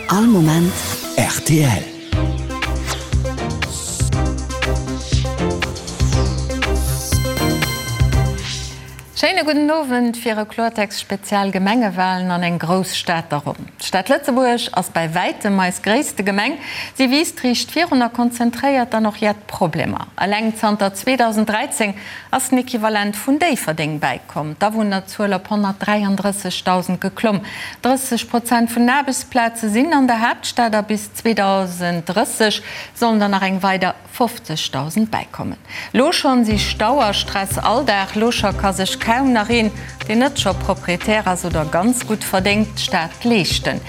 All Moment rtl. Schéine gudden Owend fir e Kloertext Spezial Gemengewalen an eng grouss Stad der Ronn. D'Stad Lëtzebuerg ass bäi wäitem eis gréisste Gemeng. Si wiisst riicht virun a konzentréiert dann och jett Problemer. Eleng zanter 2013 ass den Equivalent vun Déifferdeng bäikomm, d'Awunnerzuel op 133.000 geklomm. 30 Prozent vun den Aarbechtsplaze sinn an der Haaptstad a bis 2030 sollen der nach eng weider 50.000 bäikommen. Lo schonn si Stau a Stress Alldag, lo scho ka sech kaum nach een, deen net scho Proprietär ass oder ganz gutt verdéngt, d'Stad leeschten.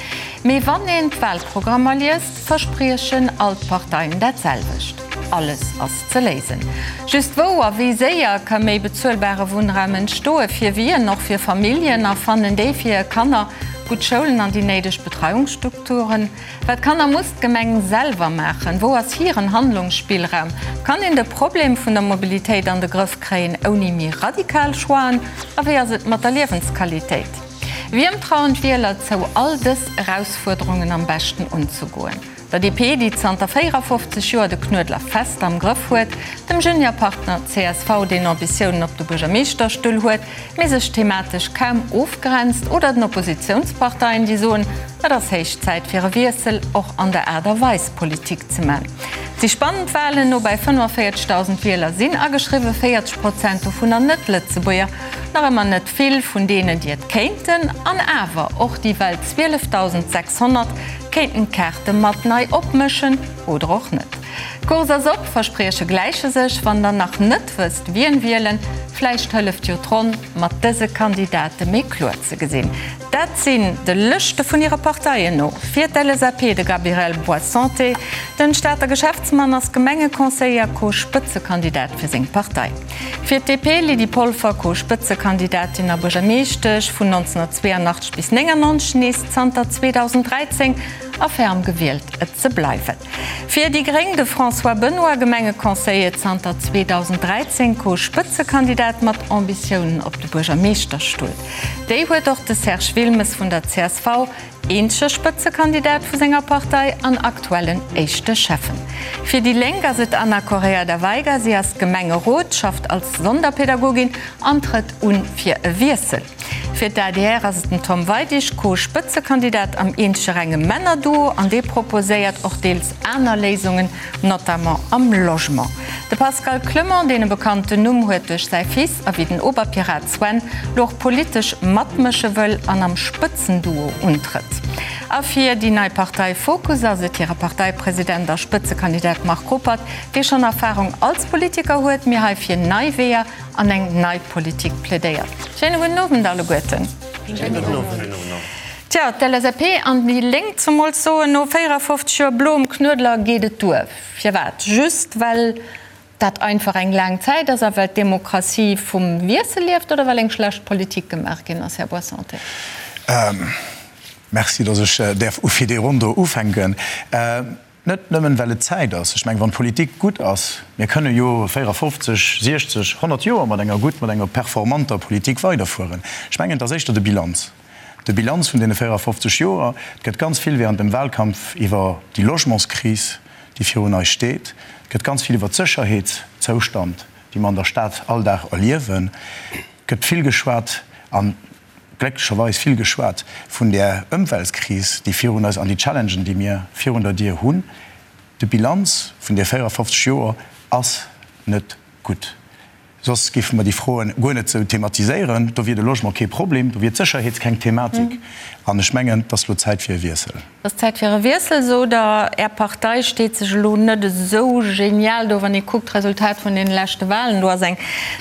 Mee wann een d'Walprogrammer liest, verspriechen all d'Parteien dat selwecht, Alles ass ze léisen. Just wou a wéi séier ka méi bezuelbare Wunnraum entstoen? Fir wien? Och fir Familljen? A fannen déi fir hir Kanner gutt Schoulen an déi néideg Betreiungsstrukturen? Wat kann a muss d'Gemeng selwer maachen? Wou ass hiren Handlungsspillraum? Kann een de Problem vun der Mobilitéit an de Grëff kréien ouni méi radikal Choixen? A wéi ass et mat der Liewensqualitéit? Wiem trauen d'Wieler zou, all dës Erausfuerderungen am beschten unzegoen? Der DP, déi zanter 54 Joer de Knuedler fest am Grëff huet, dem Juniorpartner csv, deen Ambitiounen op de Buergermeeschterstull huet, mee sech thematesch kaum ofgrenzt, oder den Oppositiounsparteien, déi soen, et ass héich Zäit fir e Wiessel, och an der Aart a Weis Politik ze man. Et si spannend Walen, no bäi 45.000 Wieler sinn ageschriwwen, 40 Prozent dovunner Net-Lëtzebuerger. Nach ëmmer net vill vun deenen, déi et kéinten. An awer, och déi well 12.600 kéinten d'Kaarte mat nei opmëschen, oder och net. D'Course ass op, Versprieche gläiche sech. Wann der nach net wësst wien wielen, vläicht hëlleft jo d'Ronn mat dëse Kandidate méi kloer ze gesinn. Dat sinn de Lëschte vun hire Parteien no fir d'LSAP de Gabriel Boissanté. Den Stater Geschäftsmann ass Gemengeconseiller, Co-Spëtzekandidat fir seng Partei. Fir d'DP Lydie Polfer, Co-Spëtzekandidatin a Buergermeeschtesch vun 1982 bis 99, nees zanter 2013 a ferm gewielt et ze bleiwen. Fir déi gréng de François Benoy, Gemengeconseiller zanter 2013, Co-Spëtzekandidat mat Ambitiounen op de Buergermeeschterstull. Déi huet och de Serge Wilmes vun der csv, eenzege Spëtzekandidat vu senger Partei an aktuellen éischte Schäffen. Fir déi Lénk ass et d'Ana Correia da Veiga. Si ass Gemengerot, schafft als Sonderpädagogin an trëtt un fir e Wiessel. Fir d'ADR ass et den Tom Weidig, Co-Spëtzekandidat am eenzege renge Männerduo an dee proposéiert och deels aner Léisungen, notamment am Logement. De Pascal Clement, deen e bekannten Numm huet duerch säi Fils a wéi den Oberpirat Sven, lo och politesch matmësche wëll an am Spëtzenduo untrëtt. A fir déi nei Partei Fokus ass et hire Parteipresident a Spëtzekandidat Marc Ruppert, dee schonn Erfarung als Politiker huet, mee hei fir nei Weeër an eng nei Politik plädéiert. Schéine gudden Owend alleguerten. Schéine gudden Owend. Tja, d'LSAP an déi Lénk zemools soen, no 54 Joer bloem Knuedler geet et duer. Firwat? Just well dat einfach eng laang Zäit ass a well d'Demokratie vum Wiessel lieft oder well eng schlecht Politik gemaach ginn ass, Här Boissanté? Merci, datt ech däerf fir déi Ronn do ufänken. Net nëmmen, well et Zäit ass. Ech mengen, wann d'Politik gutt ass, mir kënne jo 54, 60, 100 Joer mat enger gutt, mat enger performanter Politik weiderfueren. Ech mengen, et ass éischter de Bilanz, de Bilanz vun deene 54 Joer. Et gëtt ganz vill während dem Wahlkampf iwwer déi Logementskris, déi virun eis steet. Et gëtt ganz vill iwwer d'Sécherheetszoustand, déi mer an der Stad all Dag erliewen, gëtt vill geschwat. An glécklecherweis vill geschwat vun där Ëmweltkris, déi virun eis an déi Challengen, déi mir virun der Dier hunn. De Bilanz vun de 54 Joer ass net gutt. Soss géife mer déi Froen guer net esou thematiséieren. Do wier de Logement kee Problem, do wier d'Sécherheet keng Thematik. An ech mengen, et ass elo Zäit fir e Wiessel. Et ass Zäit fir e Wiessel, sot Der. Är Partei steet sech elo net esou genial do, wann ee kuckt d'Resultat vun deene leschte Wahlen. Do ass eng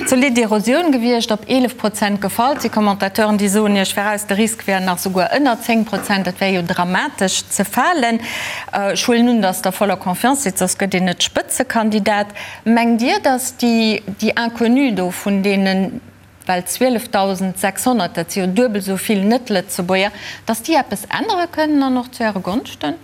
zolidd Erosioun gewiescht, op 11 Prozent gefall. Et si Commentateuren, déi soen Iech viraus, de Risk wär nach souguer ënner 10 Prozent. Dat wär jo dramatesch ze falen. Ech huelen un, datt Der voller Confiance sidd, soss gëtt een net Spëtzekandidat. Mengt Dir, datt déi Inconnue do vun deenen, well 12.600, dat si jo duebel esou vill Net-Lëtzebuerger, datt déi eppes ännere kënnen an och zu Äre Gonschten?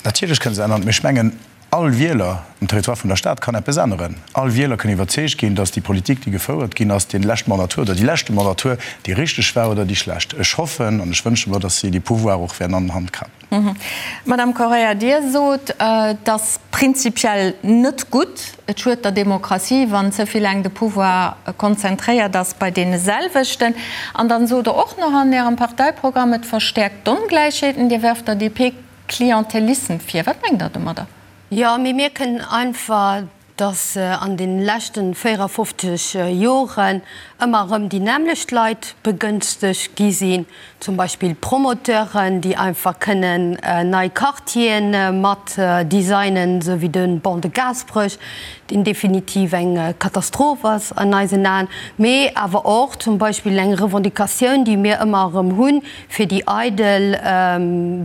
Natierlech kënne se änneren, mee ech mengen. All Wieler um Territoire vun der Stad kann eppes änneren. All Wieler kënn iwwerzeegt ginn, dass déi Politik, déi gefouert ginn ass, dee leschte Mandatur oder déi leschte Mandatur, déi richteg war oder déi schlecht. Ech hoffen an ech wënsche mer, dass si dee Pouvoir och wäerten an Hand krapen. Madame Correia, Dir sot, et ass prinzipiell net gutt, et schued der Demokratie, wann ze vill laang de Pouvoir konzentréiert ass bei deene selwechten. An dann sot Der och nach an Ärem Parteiprogramm, et verstäerkt d'Ongläichheeten. Dir werft der DP Klientelissem vir. Wat mengt Der domadder? Jo, mir mierken einfach, dass an de leschten 54 Joren ëmmer erëm déi nämmlecht Leit begënstegt gi sinn, zum Beispill Promoteuren, déi einfach kënnen nei Quartieren mat designen, esou wéi de Ban de Gaasperech, deen definitiv eng Katastroph ass an eisen Aen, mee awer och zum Beispill eng Revendicatioun, déi mir ëmmer erëm hunn, fir déi eidel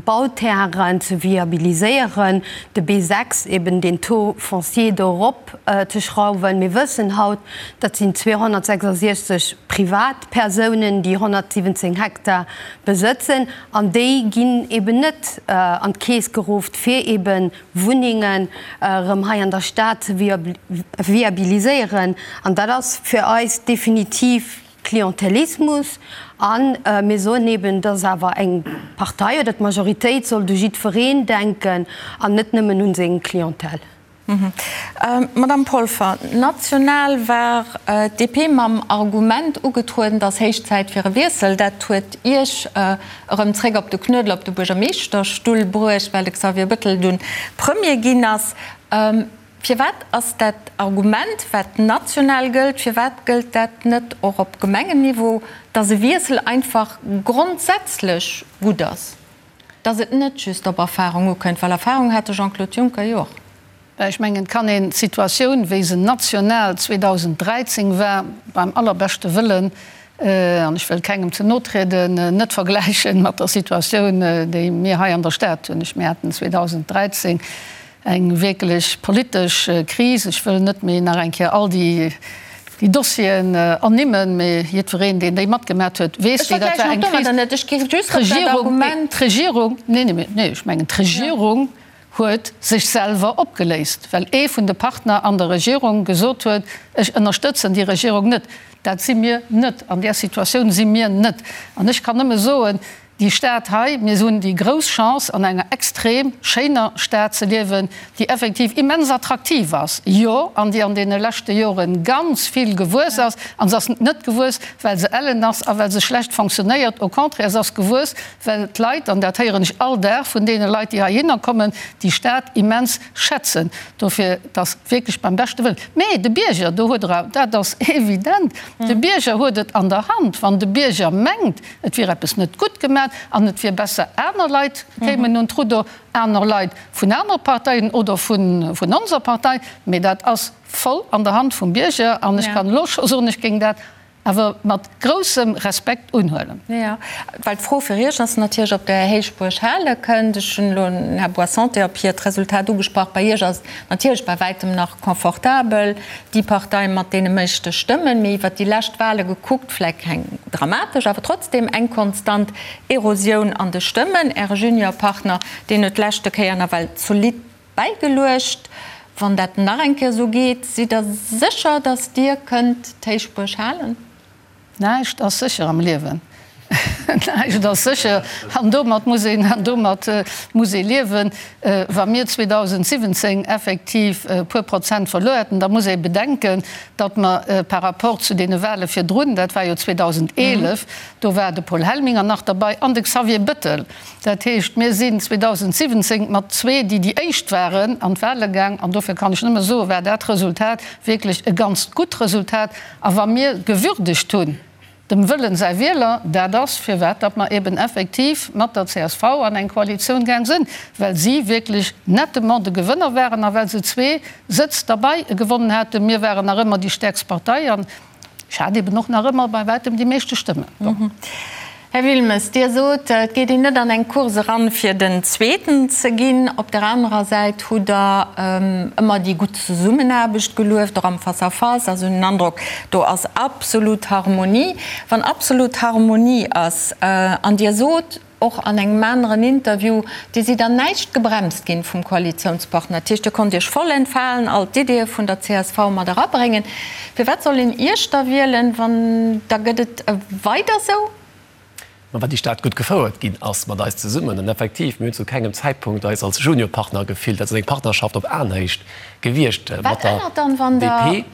Bauterrainen ze viabiliséieren, de B6, eben deen Taux foncier do erop ze schrauwen. Mir wëssen haut, dat sinn 266 Privatpersounen, déi 117 Hektar besëtzen, an déi ginn eben net an d'Keess geruff, fir eben Wunnengen erëm hei an der Stad ze viabiliséieren. An dat ass fir eis definitiv Klientelismus a mir soen eben, dass awer eng Partei oder d'Majoritéit sollt u jiddwereen denken an net nëmmen un seng Clientèle. Madame Polfer, national war d'DP mam Argument ugetrueden, et ass héich Zäit fir e Wiessel. Dat huet Iech erëm zréck op de Knuedler, op de Buergermeeschterstull bruecht, well de Xavier Bettel dunn Premier ginn ass. Firwat ass dat Argument, wat national gëllt, firwat gëllt dat net och op Gemengenniveau, dass e Wiessel einfach grondsätzlech gutt ass, dass et net just op Erfahrung ukënnt? Well Erfahrung hat de Jean-Claude Juncker jo och. Ben, ech mengen, et kann een d'Situatioun, wéi se national 2013 war, beim allerbeschte Wëllen, an ech wëll kengem ze no trieden, net vergläichen mat der Situatioun, déi mir hei an der Stad hunn. Ech, mir haten 2013 Eng wierklech politesch Kris. Ech wëll net méi nach eng Kéier all déi Dossieren ernimmen, mee jiddwereen, deen déi matgemat huet, weess, wéi dat war. Eng Kris. D'Regierung, d'Regierung, nee, nee, nee, ech mengen, d'Regierung huet sech selwer opgeléist, well ee vun de Partner an der Regierung gesot huet, ech ënnerstëtzen déi Regierung net. Dat si mir net. An där Situatioun si mir net. An ech kann nëmme soen, Déi Stad hei, mir hunn déi grouss Chance an enger extrem schéiner Stad ze liewen, déi effektiv immens attraktiv ass, jo, an déi an deene leschte Jore ganz vill gewuess ass. An se ass net gewuess, well se ellen ass a well se schlecht fonctionnéiert, au contraire, se ass gewuess, well d'Leit, an dat héieren ech all Dag vun deene Leit, déi heihinner kommen, déi Stad immens schätzen. Dofir, et ass wierklech beim beschte Wëllen. Mee de Bierger, do huet Der, dat ass evident, de Bierger huet et an der Hand. Wann de Bierger mengt, Et wier eppes net gutt gemat an et wier besser aner Leit kéimen un d'Rudder, aner Leit vun anere Parteien oder vun onser Partei. Mee dat ass voll an der Hand vum Bierger an ech kann elo scho soen, ech géing dat awer mat groussem Respekt unhuelen. Jo, well d'Fro fir Iech ass natierlech, ob Der Héichbuerg hale kënnt. Ech hunn elo den Här Boissanté op hiert Resultat ugesprach. Bei Iech ass et natierlech bei wäitem nach confortabel. déi Partei mat deene meeschte Stëmmen, mee iwwert déi lescht Wahle gekuckt, vläicht keng dramatesch, awer trotzdem eng konstant Erosioun an de Stëmmen. Äre Juniorpartner, deen huet d'leschte Kéier nawell zolidd bäigeluecht. Wann dat nach eng Kéier esou geet, sidd Der sécher, datt Dir kënnt d'Héichbuerg halen? Näischt ass sécher am Liewen. Näischt ass sécher an domat muss een, an domat muss ee liewen. Wa mir 2017 effektiv e puer Prozent verluer hätten, da muss ee bedenken, datt mer par rapport zu deene Wahle virdrun, dat war jo 2011, do war de Paul Helminger nach derbei an de Xavier Bettel, dat heescht, mir sinn 2017 mat zwee, déi déi éischt waren, an d'Wahle gaang an dofir kann ech nëmme soen, war dat Resultat wierklech e ganz gutt Resultat. A wa mir gewürdegt hunn, dem Wëllen säi Wieler, dat ass, firwat datt mer eben effektiv mat der csv an eng Koalitioun gaang sinn, well si wierklech nettement de Gewënner waren a well se zwee Sëtz derbei gewonnen haten. Mir waren nach ëmmer déi stäerkst Partei an ech hat eben och nach ëmmer bei wäitem déi meeschte Stëmmen. Bon. Här Wilmes, Dir sot, et geet een net an eng Course eran, fir den Zweeten ze ginn. Op der anerer Säit hutt Der ëmmer déi gutt Zesummenaarbecht gelueft, och am Face-à-face. Also hunn den Androck, do ass absolut Harmonie. Wann absolut Harmonie ass an Dir sot. och an engem aneren Interview, Dir sidd an näischt gebremst ginn vum Koalitiounspartner. Dat heescht, Dir konnt Iech voll entfalen, all d'Ideeë vun der csv mat erabréngen. Firwat soll een Iech da wielen, wann da gëtt et weider esou? Ma well déi Stad gutt gefouert ginn ass mat eis zesummen. An effektiv, mir hunn zu kengem Zäitpunkt eis als Juniorpartner gefillt. Dat ass eng Partnerschaft op Aenhéicht gewiescht mat der DP.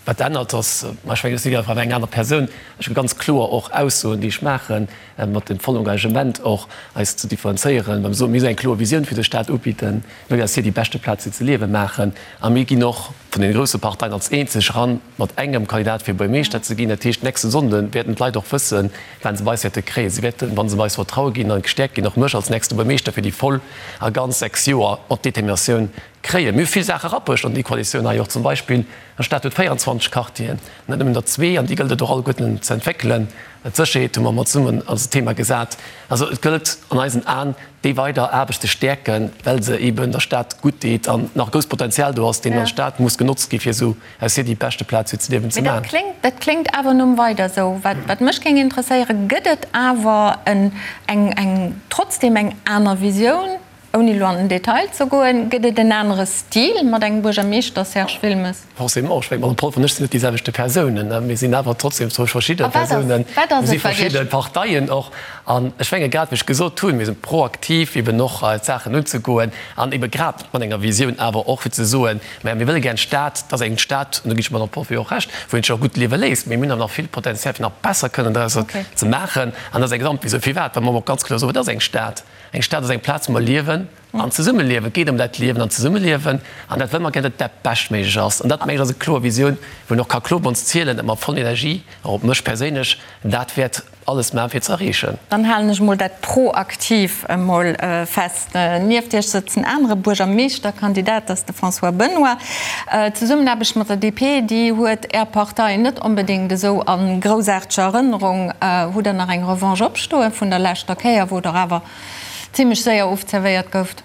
Wat ännert, ass, ma ech mengen, ech si einfach eng aner Persoun. Ech hu ganz kloer och Aussoen, déi ech maachen, mat dem vollen Engagement och, eis ze differenzéieren, wa mir soen, mir eng kloer Visioun fir de Staat ubidden, mir wëllen eis hir déi beschte Plaz fir ze liewen maachen. A mir ginn och vun deene grousse Parteien als eenzeg eran mat engem Kandidat fir Buergermeeschter ze ginn. Dat heescht, nächste Sonnde wäerten d'Leit och wëssen, wat se bei eis wäerte kréien. Si wäerten, wa se bei eis Vertraue ginn a gestäerkt ginn, och mech als nächste Buergermeeschter fir déi voll a ganz 6 Joer mat Determinatioun kréien. Mir hu vill Saache erabruecht an déi Koalitioun hei och. Zum Beispill, der Stad huet 24 Quartieren, net nëmmen der zwee, an déi gëllt et och alleguerten ze entwéckelen. D'Sécherheet hu mer mat zesummen als Thema gesat. Also et gëllt an eisen Aen, déi weider Aarbecht ze stäerken, well se eeben der Stad gutt deet an nach e grousst Potenzial do ass, deen an der Stad muss genotzt gi fir esou aus hir déi beschte Plaz fir ze liewen ze Mee dat maachen. kléngt, dat kléngt awer nom weider esou. Wat, wat mech géing interesséieren, Gëtt et awer en, eng, eng, trotzdem eng aner Visioun? Ouni elo an den Detail ze goen, gëtt et en anere Stil mat engem Buergermeeschter, Serge Wilmes? Forcément, ech mengen, d'Madame Polfer an ech sinn net déi selwechte Persounen. Mir sinn awer trotzdem zwou verschidde Persounen, mir si verschidde Parteien och. An ech menge grad, wéi ech gesot hunn, mir si proaktiv eben och d'Saachen unzegoen an ebe grad mat enger Visioun awer och fir ze soen, Mä mir wëlle gär eng Stad, dat ass eng Stad, an do ginn ech der Madame Polfer jo och Recht, wou een sech och gutt liewe léisst. Mee mir hunn awer nach vill Potenzial fir nach besser kënnen drausser ze maachen. An dat ass eng Gesamtvisioun. Firwat? Well mer och ganz kloer soen, et ass eng Stad. Eng Stad ass eng Plaz, wou mer liewen an zesummeliewen. Et geet ëm dat Liewen an Zesummeliewen an dat wëlle mer gär, datt dat beschtméiglech ass. An dat, mengen ech, ass eng kloer Visioun, wou een och ka kloer op ons zielen, datt mer voll Energie, och op mech perséinlech, dat wäert alles maachen, fir ze erreechen. Dann halen ech emol dat proaktiv emol fest. Nieft Iech sëtzt en anere Buergermeeschterkandidat, dat ass de François Benoy. D'Zesummenaarbecht mat der DP, déi huet Är Partei net onbedéngt esou a groussaarteger Erënnerung. Hutt Der nach eng Revanche opstoe vun der leschter Kéier, wou Der awer zimlech séier ofzerwéiert gouft?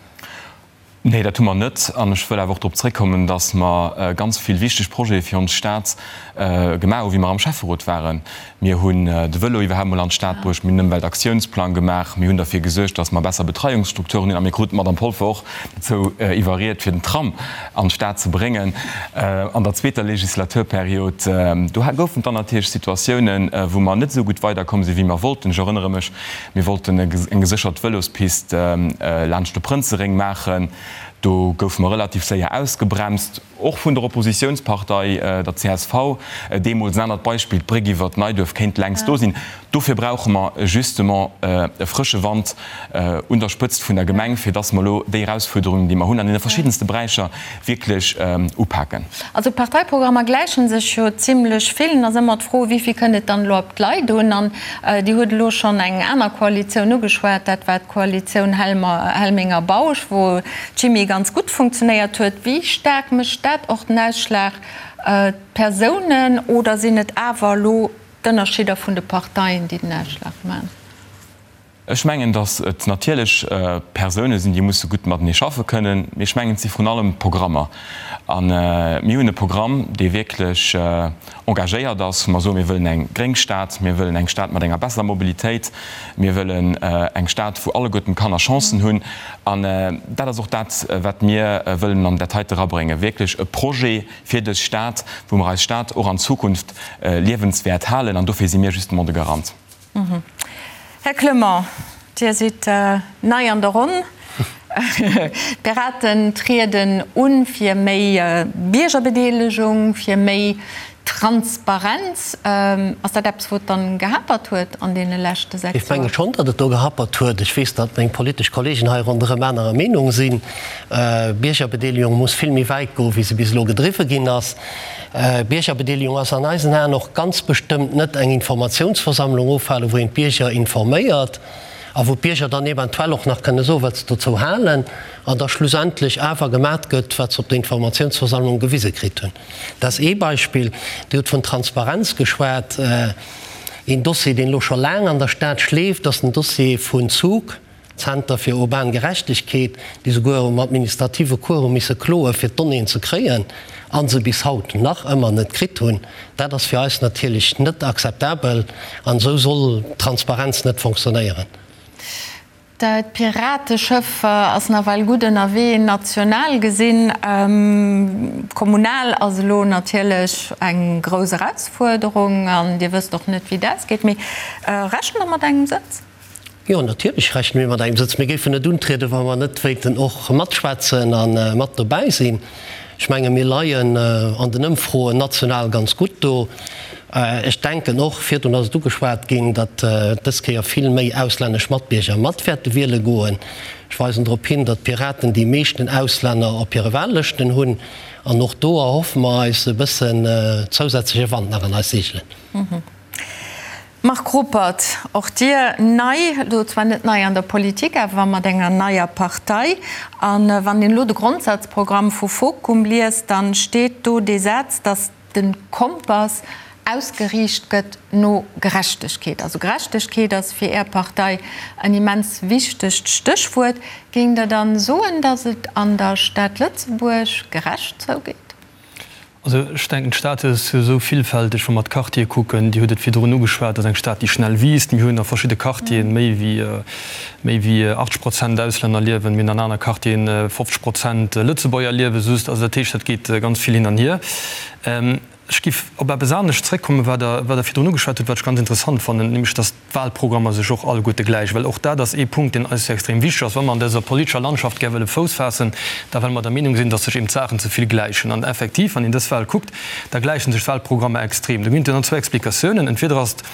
Nee, dat hu mer net. An ech wëll awer och drop zréckkommen, datt mer ganz vill wichteg Projete fir ons Stad gemaach hu wéi mer am Schäfferot waren. Mir hunn de Vëlo iwwerhaapt mol an d'Stad bruecht, mir hunn en Ëmweltaktiounsplang gemaach, mir hunn derfir gesuergt, datt mer besser Betreiungsstrukturen hunn a mir kruten d'Madame Polfer och dozou iwwerriet, fir den Tram an d'Stad ze bréngen an der zweeter Legislaturperiod. Do goufen et dann natierlech Situatiounen, wou mer net esou gutt weiderkomm sinn, wéi mer wollten. Ech erënnere mech, mir wollten eng geséchert Vëlospist laanscht de Prënzeréng maachen. Do goufe mer relativ séier ausgebremst. Och vun der Oppositiounspartei, der csv, deemools. En anert Beispill, d'Bréck iwwer d'Neiduerf kéint längst do sinn. Dofir brauche mer justement e frësche Wand un der Spëtzt vun der Gemeng, fir dass mer elo déi Erausfuerderungen, déi mer hunn an deene verschiddenste Beräicher, wierklech upaken. Also d'Parteiprogrammer gläiche sech jo zimlech vill. Et ass ëmmer d'Fro, wéi vill kënnt et dann elo op d'Leit un? An Dir hutt elo schonn eng aner Koalitioun ugeschwat, dat war d'Koalitioun Helminger-Bausch, wou d'Chimie ganz gutt funktionéiert huet. Wéi staark mécht dat och den Ausschlag, d'Persounen, oder sinn et awer elo d'Ënnerschidder vun de Parteien, déi den Ausschlag maachen? Ech mengen, datt et natierlech Persoune sinn, déi musse gutt matenee schaffe kënnen, mee ech mengen, et si vrun allem d'Programmer. A mir hunn e Programm, dee wierklech engagéiert ass, wou mer soen, mir wëllen eng gréng Stad, mir wëllen eng Stad mat enger besserer Mobilitéit, mir wëllen eng Stad, wou alleguerten d'Kanner Chancen hunn. An dat ass och dat, wat mir wëllen an dat heite erabréngen, wierklech e Projet fir dës Stad, wou mer eis Stad och an Zukunft liewenswäert halen. An dofir si mir justement de Garant. Här Clement, Dir sidd nei an der Ronn. D'Piraten trieden u fir méi Biergerbedeelegung, fir méi Transparenz. Ass dat eppes, wou et dann gehapert huet an deene leschte 6 Joer? Ech menge schonn, datt et do gehapert huet. Ech weess, datt meng politesch Kollegen hei ronderëm anerer Meenung sinn. Biergerbedeelegung muss vill méi wäit goen, wéi se bis elo gedriwwe ginn ass. Biergerbedeelegung ass an eisen Aen och ganz bestëmmt net eng Informatiounsversammlung ofhalen, wou een d'Bierger informéiert a wou d'Bierger dann eventuell och nach kënne soen, wat se dozou halen, an da schlussendlech awer gemat gëtt, wat se op der Informatiounsversammlung gewise kritt hunn. Dat ass ee Beispill. Dir hutt vun Transparenz geschwat. Een Dossier, deen elo scho laang an der Stad schleeft, ass den Dossier vun Zug. Zenter fir urban Gerechtegkeet, déi souguer um administrative Cours hu misse kloe fir d'Donnéeën ze kréien a se bis haut nach ëmmer net kritt hunn. Dat ass fir eis natierlech net akzeptabel an esou soll Transparenz net fonctionnéieren. D'Pirateschëff ass nawell gutt ënnerwee, national gesinn. Kommunal ass elo natierlech eng grouss Erausfuerderung an Dir wësst och net, wéi et ausgeet. Mee rechent Der mat engem Sëtz? Jo, natierlech rechne mir mat engem Sëtz. Mir géifen net untrieden, wa mer net wéilten och matschwätzen a mat dobäi sinn. Ech menge mir leien an den Ëmfroen national ganz gutt do. Ech denken och, virdrun ass et ugeschwat ginn, datt dës Kéier vill méi auslännesch Matbierger mat wäerte wiele goen. Ech weisen drop hin, datt d'Piraten déi meeschten Auslänner op hire Wahllëschten hunn. An och do erhoffe mer eis e bëssen zousätzleche Wand nach an eis Seegelen. Marc Ruppert, och Dir nei, elo zwar net nei an der Politik, awer mat enger neier Partei. A wann een elo de Grondsatzprogramm vu Fokum liest, da steet do dee Saz, datt de Kompass ausgeriicht gëtt no Gerechtegkeet. Also Gerechtegkeet ass fir Är Partei en immens wichtegt Stéchwuert. Géingt Der dann soen, datt et an der Stad Lëtzebuerg gerecht zougeet? Also ech denken, d'Stad ass jo esou villfälteg, wa mer d'Quartiere kucken, Dir hutt et virdrun ugeschwat, ass eng Stad, déi schnell wiisst. Mir hunn a verschidde Quartieren méi wéi méi wéi 80 Prozent Auslänner liewen, mir hunn an aner Quartieren 50 Prozent Lëtzebuerger liewe just. Also dat heescht, dat geet ganz vill hin an hier. Ech géif op eppes anescht zréckkommen, wat Der wat Der virdrun ugeschwat hutt, wat ech ganz interessant fannen, nämlech datt d'Wahlprogrammer sech och alleguerte gläichen, well och dat ass ee Punkt, deen eis jo extrem wichteg ass, wa mer an dëser politescher Landschaft gär wëlle Fouss faassen, da well mer der Meenung sinn, datt sech eben d'Saachen ze vill gläichen. An effektiv, wann een dës Wahl kuckt, da gläiche sech d'Wahlprogrammer extrem. Do ginn et jo dann zwou Explikatiounen, Entweder ass et,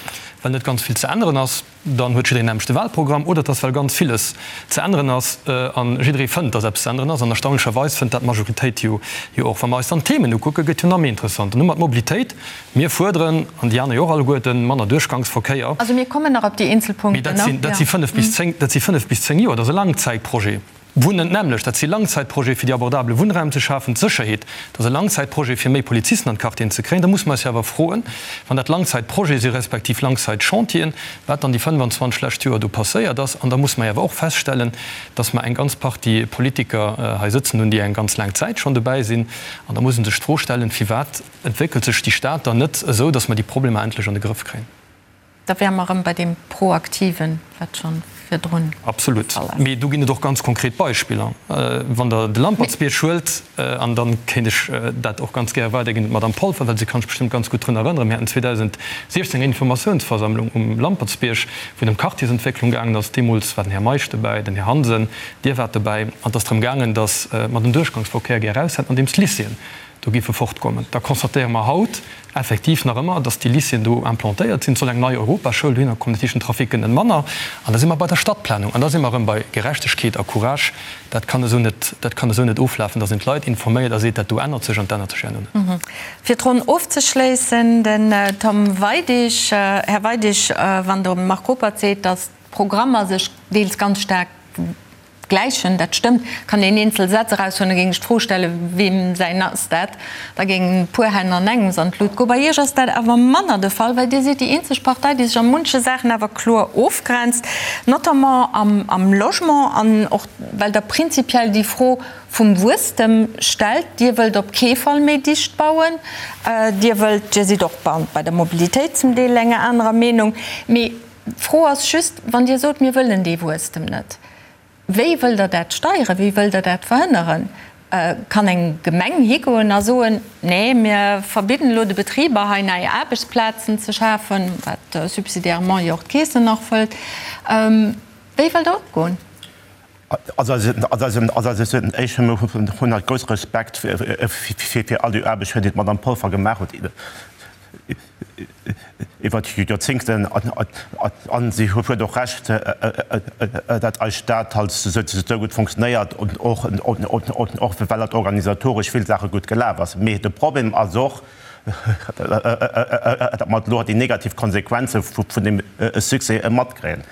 well net ganz vill ze änneren ass, dann huet jiddereen nämmlecht de Wahlprogramm, oder et ass, well ganz villes ze änneren ass a jidderee fënnt, datt eppes ze änneren ass. An erstaunlecherweis fënnt dat d'Majoritéit jo och. Wa mer eis dann d'Themen ukucken, gëtt jo nach méi interessant. Dann hu mer d'Mobilitéit. Mir fuerderen, an déi aner jo och alleguerten, manner Duerchgangsverkéier. Also mir kommen nach op déi eenzel Punkten. Mee dat si fënnef bis zéng, dat si fënnef bis zéng Joer. Dat ass e Langzäitprojet. Wunnen d'nämmlecht, dat si Langzäitprojete fir déi abordabele Wunnraum ze schafen. D'Sécherheet, dat ass e Langzäitprojet fir méi Polizisten an d'Quartieren ze kréien. Da musse mer eis jo awer froen, wann dat Langzäitprojete si respektiv Langzäitchantieren, wat dann déi 25 lescht Joer do passéiert ass. An da musse mer jo awer och feststellen, dass mer eng ganz Partie Politiker hei sëtzen hunn, déi eng ganz laang Zäit schonn dobäi sinn. An da muss ee sech d'Fro stellen, firwat Entwéckelt sech déi Stad dann net esou, datt mer déi Problemer endlech an de Grëff kréien? Da wäre mer erëm bei deem Proaktiven, wat scho virdrun de Absolut. Fall ass. Mee do ginn et och ganz konkret Beispiller. Wann Der de Lampertsbierg huelt, an da kéint ech dat och ganz gäre weiderginn un d'Madame Polfer, well si kann sech bestëmmt ganz gutt drun erënneren, Mir haten 2016 eng Informatiounsversammlung um Lampertsbierg, wou et ëm Quartiersentwécklung gaangen ass. Deemools war den Här Meisch dobäi, den Här Hansen, Dir waart dobäi. An et ass drëm gaangen, datt mer den Duerchgangsverkéier gär eraushätten, andeems d'Lycéeën do géife fortkommen, da constatéiere mer haut effektiv nach ëmmer, dass déi Lycéeën do implantéiert sinn. Et soll eng nei Europaschoul dohinner kommen, dat heescht, den Trafic gëtt net manner. An da si mer bei der Stadtplanung an da si mer erëm bei Gerechtegkeet a Courage. Dat kann esou net, dat kann esou net oflafen, dass een d'Leit informéiert a seet, dat do ännert sech an et ännert sech herno net. Fir d'Ronn ofzeschléissen, den Tom Weidig. Här Weidig, wann de Marc Ruppert seet, dass d'Programmer sech deels ganz staark Gläichen, dat stëmmt. Kann een eenzel Sätz eraushuelen, da géing ech d'Fro stellen, Weem säin ass dat? Da géingen e puer Hänn an engems an d'Lut goen. Bei Iech ass dat awer manner de Fall, well Dir sidd déi eenzeg Partei, déi sech a munche Saachen awer kloer ofgrenzt, notamment am Logement an och well Der prinzipiell déi Fro vum Wuesstem stellt. Dir wëllt op kee Fall méi dicht bauen. Dir wëllt, Dir sidd och bei der Mobilitéit zum Deel enger anerer Meenung. Mee D'Fro ass just, wann Dir sot, mir wëllen dee Wuesstem net, wéi wëllt Der dat steieren, wéi wëllt Der dat verhënneren? Kann eng Gemeng higoen a soen, nee, mir verbidden elo de Betriber hei nei Aarbechtsplazen ze schafen, wat subsidiairement jo och d'Keesen nach fëllt. Wéi wëllt Der opgoen? Also ech hunn halt grousse Respekt fir all déi Aarbecht, déi d'Madame Polfer gemaach huet iwwer Joerzéngten. A si huet och Recht, datt eis Stad halt esou gutt funktionéiert, och well halt organisatoresch vill Saache gutt gelaf ass. Mee de Problem ass och, datt mer elo déi negativ Konsequenze vun deem Succès matkréien,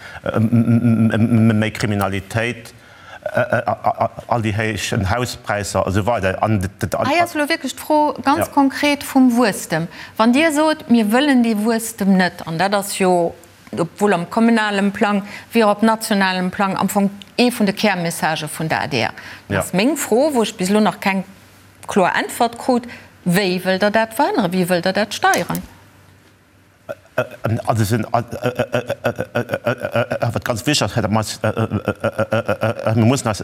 méi Kriminalitéit, all déi héich Hauspräisser a sou weider. Hei ass elo wierklech d'Fro ganz konkret vum Wuesstem. Wann Dir sot, mir wëllen dee Wuesstem net, an dat ass jo obwuel am kommunalem Plang wéi och op nationalem Plang am Fong ee vun de Kärmessagë vun der adr, dann ass meng Fro, wou ech bis elo nach keng kloer Äntwert krut, Wéi wëllt Der dat verhënneren? Wéi wëllt Der dat steieren? Wat ganz wichteg ass, mir mussen eis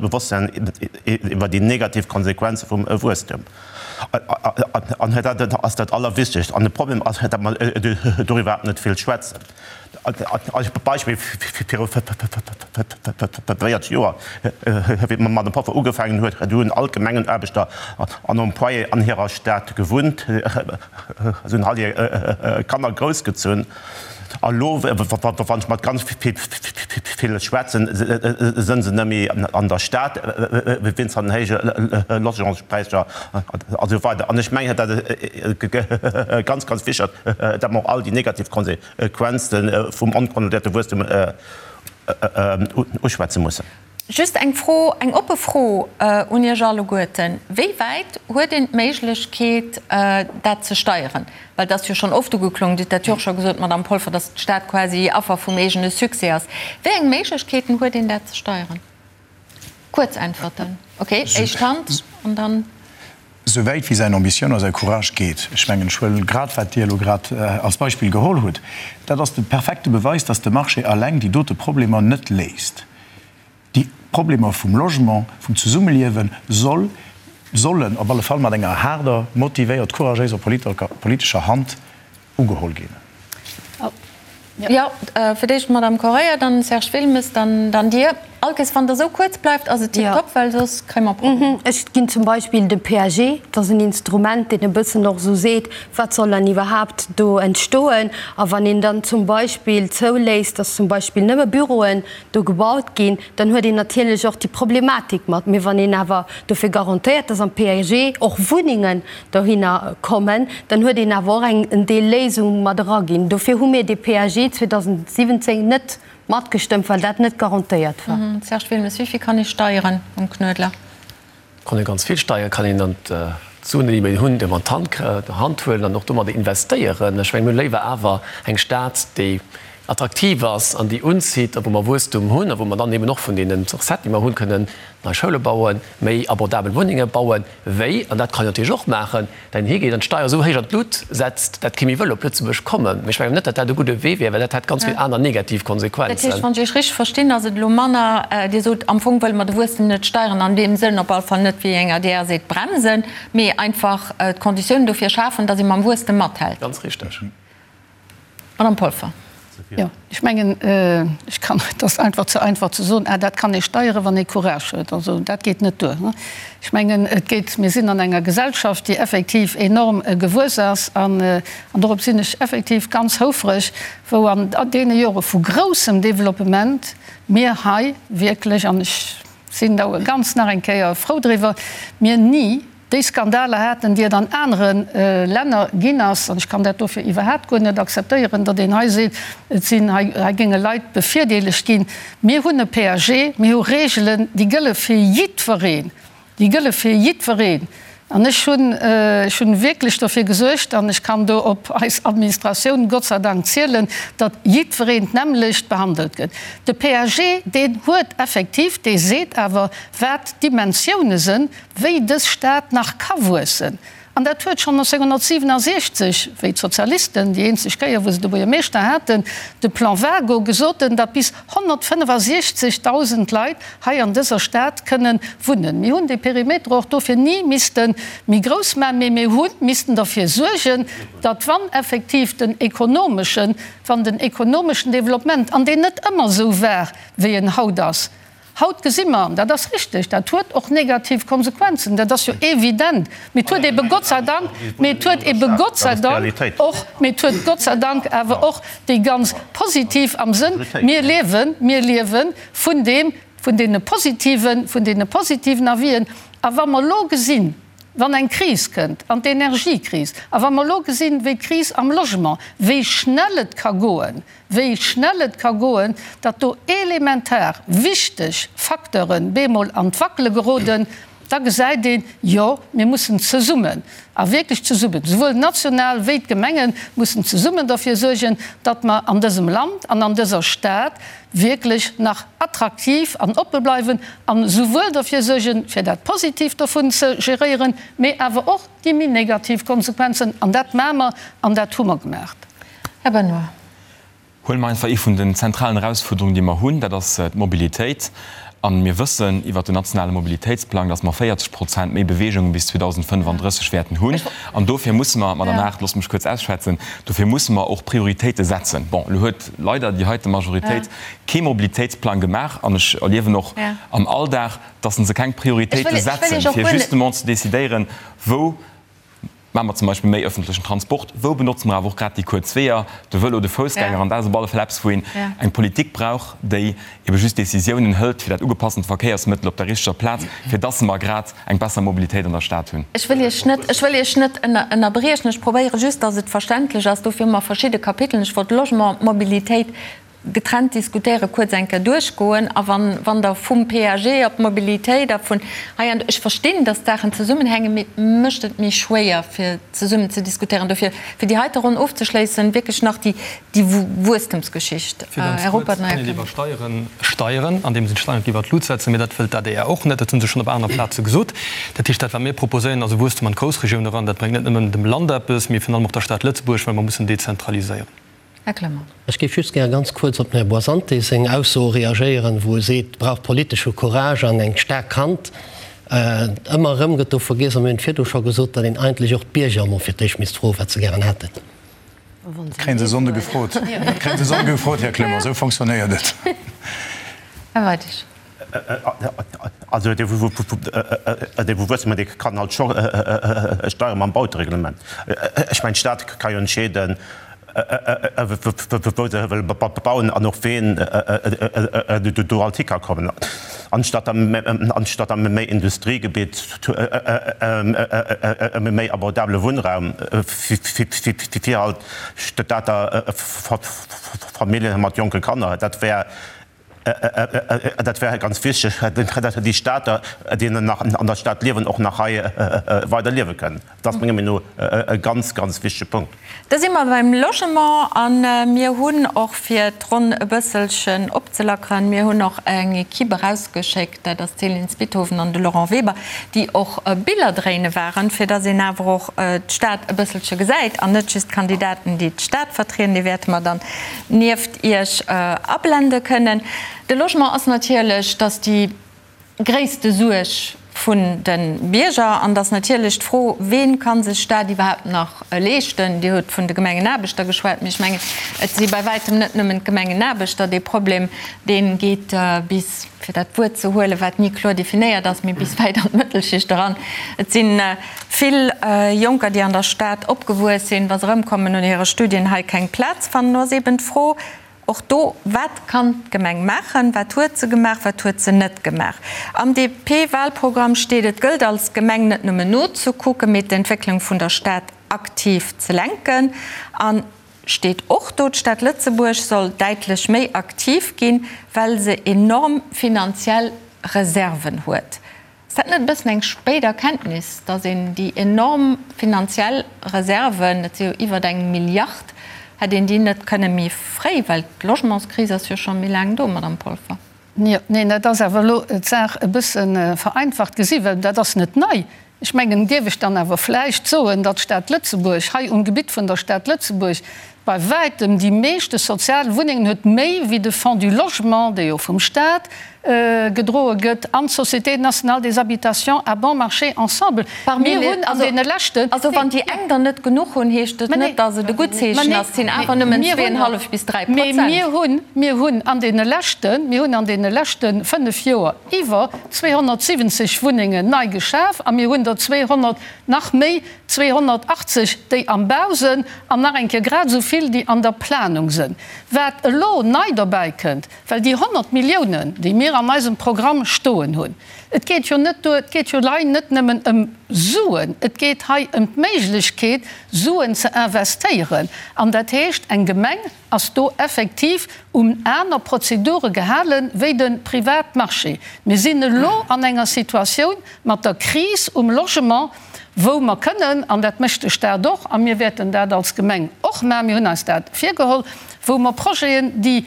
bewosst sinn iwwer déi negativ Konsequenze vum Wuesstem. An dat ass dat Allerwichtegst. An de Problem ass, datt mer doriwwer iwwerhaapt net vill schwätzen. Als Beispill, Viru 40 Joer, wéi d'Madame Polfer ugefaangen huet, do hunn all d'Gemengenaarbechter an Employéen an hirer Stad gewunnt, se hunn all hir Kanner groussgezunn. A lo, wann ech mat ganz ville schwätzen, sënn se net méi an der Stad wéinst den héije Logementspräisser a sou weider. An ech mengen, dat ass ganz, ganz wichteg, datt mer och all déi negativ Konsequenze vum onkontrolléierte Wuesstem uschwätze mussen. Just eng Fro, eng oppe Fro un Iech alleguerten, Wéi wäit huet een d'Méiglechkeet, dat ze steieren? Well et ass jo schonn oft ugeklongen, Dir hutt dat jo och scho gesot, Madamm Polfer, datt d'Stad quasi Affer vum eegene Succès ass. Wéi eng Méiglechkeeten huet een, dat ze steieren? Kuerz Äntwerten. Okay, éischt Hand an dann. Esou wäit wéi säin Ambitioun a säi Courage geet. Ech mengen, ech huelen grad, wat Dir elo grad als Beispill geholl hutt, dat ass de perfekte Beweis, dass de Marché alleng déi dote Problemer net léist. Déi Problemer vum Logement, vum Zesummeliewe soll, sollen op alle Fall mat enger haarder, motivéiert, couragéiser politescher Hand ugeholl ginn. Jo, fir d'éischt d'Madame Correia, dann Serge Wilmes, dann Dir. Allkéiers wann Der esou kuerz bleift, ass et tiptop, well soss kréie mer Problemer. Ech ginn zum Beispill de PAG, dat ass en Instrument, deen e bëssen och esou seet, wat soll dann iwwerhaapt do entstoen. A wann een dann zum Beispill zouléisst, dass zum Beispill nëmme Büroen do gebaut ginn, dann huet een natierlech och déi Problematik mat. Mee wann een awer dofir garantéiert, dass am PAG och Wunnengen dohinner kommen, dann huet een awer och eng en Deel Léisung mat eraginn. Dofir hu mir dee PAG 2017 net matgestëmmt, well dat net garantéiert war. Serge Wilmes, Wéi vill kann ee steieren um Knuedler? Kann ee ganz vill steieren, kann een dann d'Suen, déi mir hunn, déi mer an d'Hand huelen an och domadder investéieren. Ech mengen, mir hu léiwer awer eng Stad, déi attraktiv ass an déi unzitt a wou mer Wuesstum hunn a wou mer dann eben och vun deene Recetten, déi mer hunn, kënnen nei Schoule bauen, méi abordabel Wunnenge bauen, wéi, an dat kann een natierlech och maachen, dat een higeet an d'Steier esou héich an d'Lut setzt, dat kee méi wëll op Lëtzebuerg kommen. Mee ech mengen net, dat dat e gudde Wee wär, well dat hätt ganz vill aner negativ Konsequenzen. Dat heescht, wann ech Iech richteg verstinn, ass et elo manner, Dir sot, am Fong wëlle mer de Wuesstem net steieren, an deem Sënn op alle Fall net, wéi eng adr seet, bremsen, mee einfach d'Konditiounen dofir schafen, datt ee mam Wuesstem mathält. Ganz richteg. Madame Polfer. Jo, ech mengen, ech kann, et ass einfach ze einfach ze soen, ah dat kann ee steieren, wann ee Courage huet. Also dat geet net duer. Ech mengen, et geet, mir sinn an enger Gesellschaft, déi effektiv enorm gewuess ass an, an dorop sinn ech effektiv ganz houfreg, wou an deene Jore vu groussem Développement mir hei wierklech, an ech sinn do ganz nach eng Kéier frou driwwer, mir ni déi Skandaler haten, déi et an anere Länner ginn ass, an ech kann dat dofir iwwerhaapt guer net akzeptéieren, datt een hei seet, et sinn hei, hei géinge Leit bevirdeelegt ginn. Mir hunn e PAG, mir hu Regeln, déi gëlle fir jiddwereen, déi gëlle fir jiddwereen. An ech hunn, ech hunn wierklech dofir gesuergt, an ech kann do op eis Administratioun Gott sei Dank zielen, datt jiddwereen d'nämmlecht behandelt gëtt. De PAG, deen huet effektiv, dee seet awer, wat d'Dimensioune sënn, wéi dës Stad nach ka wuessen. An dat huet schonn 1967, wéi d'Sozialisten, déi eenzeg Kéier wou se de Buergermeeschter haten, de Plan Wago, gesot hunn, datt bis 165.000 Leit hei an dëser Stad kënnen wunnen. Mir hunn dee Perimeter och dofir ni misste méi grouss maachen, mee mir hu missten derfir suergen, datt wann effektiv den ekonomeschen, wann den ekonomeschen Développement, an deen net ëmmer esou war wéi en haut ass, Haut gesi mer, an dat ass richtig, dat huet och negativ Konsequenzen, dat ass jo evident, mee et huet ebe Gott sei Dank, mee et huet ebe Gott sei Dank och, mee et huet Gott sei Dank awer och déi ganz positiv am Sënn, mir liewen, mir liewe vun deem, vun deene positiven, vun deene positiven Avisen. A wa mer elo gesinn, wann eng Kris kënnt, an d'Energiekris, a wa mer elo gesinn, wéi d'Kris am Logement, wéi schnell et ka goen, wéi schnell et ka goen, datt do elementar wichteg Facteuren bemol an d'Wackele geroden. Da gesäit een, jo, mir mussen zesummen, a wierklech zesummen, souwuel national wéi d'Gemengen mussen zesummen derfir suergen, datt mer an dësem Land an an dëser Stad wierklech nach attraktiv an oppe bleiwen an souwuel derfir suergen, fir dat Positiivt dovun ze geréieren, mee awer och déi méi negativ Konsequenzen. An dat maache mer an dat hu mer gemaach. Här Benoy. Huele mer einfach ee vun den zentralen Erausfuerderungen, déi mer hunn, dat ass d'Mobilitéit. A mir wëssen iwwert den nationale Mobilitéitsplang, dass mer 40 Prozent méi Beweegunge bis 2035 wäerten hunn. An dofir musse mer, Madame Aart, loosst mech kuerz ausschwätzen, dofir musse mer och Prioritéite setzen. Bon, elo huet leider déi heite Majoritéit kee Mobilitéitsplang gemaach an ech erliewen och am Alldag, dass se keng Prioritéite setzen, fir justement ze decidéieren, wou Maache mer zum Beispill méi öffentlechen Transport? Wou benotze mer awer och grad déi kuerz Weeër, de Vëlo, de Foussgänger? An dat ass op alle Fall eppes, wou een eng Politik brauch, déi ebe just Décisiounen hëlt fir dat ugepassent Verkéiersmëttel op der richteger Plaz, fir dass mer grad eng besser Mobilitéit an der Stad hunn. Ech wëll Iech net, ech wëll Iech net ënnerbriechen. Ech probéiere just, dass et verständlech ass. Dofir hu mer verschidde Kapiteln. Ech wollt Logement, Mobilitéit getrennt diskutéieren, kuerz eng Kéier duerchgoen a wann, wann Der vum PAG op d'Mobilitéit a vun hei an do, ech verstinn, dass d'Saachen zesummenhängen, mee et mécht et méi schwéier fir zesummen ze diskutéieren. Dofir, fir déi heite Ronn ofzeschléissen, wierklech nach déi, déi Wuesstemsgeschicht. Fir ganz Här kuerz, Ruppert, kann een iwwer Steieren steieren, andeems een d'Steieren iwwer d'Lut setzen, mee dat wëllt d'ADR och net, dat hu se schonn op aner Plaze gesot. Dat heescht, dat wat mir proposéieren, ass e Wuesstem an d'Groussregioun eran. Dat bréngt net nëmmen dem Land eppes, mee virun allem och der Stad Lëtzebuerg, well mer mussen dezentraliséieren. Här Clement. Ech géif just gär ganz kuerz op den Här Boisante seng Ausso reagéieren, wou e seet, et brauch politesche Courage an eng staark Hand. Ëmmer erëm gëtt do vergiess, a mir hunn et virdu scho gesot, datt een eigentlech och d'Bierger emol fir d'éischt misst froen, wat se gären hätten. Dat kréie se Sonnde gefrot. Dat kréie se Sonnde gefrot, Här Clement. Esou fonctionnéiert et. Här Weidig. Also dee Wuesstem, dee kann halt scho steiere mam Bautereglement. Ech mengen, d'Stad ka jo entscheeden, wou se wëll bauen an och ween do alt hi ka kommen. Anstatt a méi Industriegebitt, méi abordabele Wunnraum fir halt Stater Familljen mat jonke Kanner, dat wär Dat wär ganz wichteg, datt déi Stater, déi nach an der Stad liewen, och nach hei weider liewe kënnen. Dat ass menger Meenung no e ganz, ganz wichtege Punkt. Da si mer beim Logement a mir hunn och, fir d'Ronn e bësselchen opzelackeren, mir hunn och eng Equipe erausgeschéckt, dat ass d'Céline Spithoven an de Laurent Weber, déi och Biller dréine waren, fir datt een awer och d'Stad e bësselche gesäit an net just d'Kandidaten, déi d'Stad vertrieden. Déi wäerte mer dann nieft Iech ablende kënnen. De Logement ass natierlech, dass déi gréisste Suerg vun de Bierger an dass natierlech d'Fro, Ween ka sech dat iwwerhaapt nach leeschten? Dir hutt vun de Gemengenaarbechter geschwat, mee ech mengen, et si bei wäitem net nëmmen d'Gemengenaarbechter. Dee Problem, dee geet bis, fir dat Wuert ze huelen, wat ni kloer definéiert ass, mee bis wäit an d'Mëttelschicht eran. Et si vill Jonker, déi an der Stad opgewuess sinn, wa se erëmkommen no hire Studien, hei keng Plaz fannen. Do ass eeben d'Fro och do, Wat kann d'Gemeng maachen? Wat huet se gemaach? Wat huet se net gemaach? Am DP-Wahlprogramm steet, Et gëllt als Gemeng net nëmmen nozekucken, mee d'Entwécklung vun der Stad aktiv ze lenken. An steet och do, D'Stad Lëtzebuerg soll däitlech méi aktiv ginn, well se enorm finanziell Reserven huet. Ass dat net e bëssen eng spéit Erkenntnis, datt een déi enorm finanziell Reserven, dat si jo iwwert eng Milliard, hätt een déi net kënne méi fréi, well d'Logementskris ass jo scho méi laang do, Madamm Polfer? Jo, neen, dat ass awer elo d'Saach e bësse vereinfacht gesi, well dat ass net nei. Ech mengen, dierf ech dann awer vläicht soen, datt d'Stad Lëtzebuerg hei um Gebitt vun der Stad Lëtzebuerg bei wäitem déi meeschte sozial Wunnengen huet, méi wéi de Fonds du Logement, dee jo vum Stat gedroe gëtt, an d'Société nationale des habitations à bon marché ensemble. Mir hunn an deene leschten. Also wann déi eng der net genuch hunn, heescht et net, datt et e gutt Zeechen ass. Et sinn awer nëmmen zweeënhallef bis 3 Prozent. Mee mir hunn, mir hunn an deene leschten, mir hunn an deene leschte fënnef Joer iwwer 270 Wunnengen nei geschaf a mir hunn der 200, nach méi, 280, déi am Bau sënn an nach eng Kéier grad esou vill, déi an der Planung sënn. Wat elo nei dobäi kënnt, well déi 100 Milliounen, déi mir. mir an eisem Programm stoen hunn. Et geet jo net duer, et geet jo lei net nëmmen ëm Suen, et geet hei ëm d'Méiglechkeet, Suen ze investéieren. An dat heescht, eng Gemeng ass do effektiv un aner Prozedure gehale wéi de Privatmarché. Mir sinn elo an enger Situatioun mat der Kris um Logement, wou mer kënnen, an dat mécht de Stat och, a mir wäerten dat als Gemeng och maachen, mir hunn eis dat virgeholl, wou mer Projeten, déi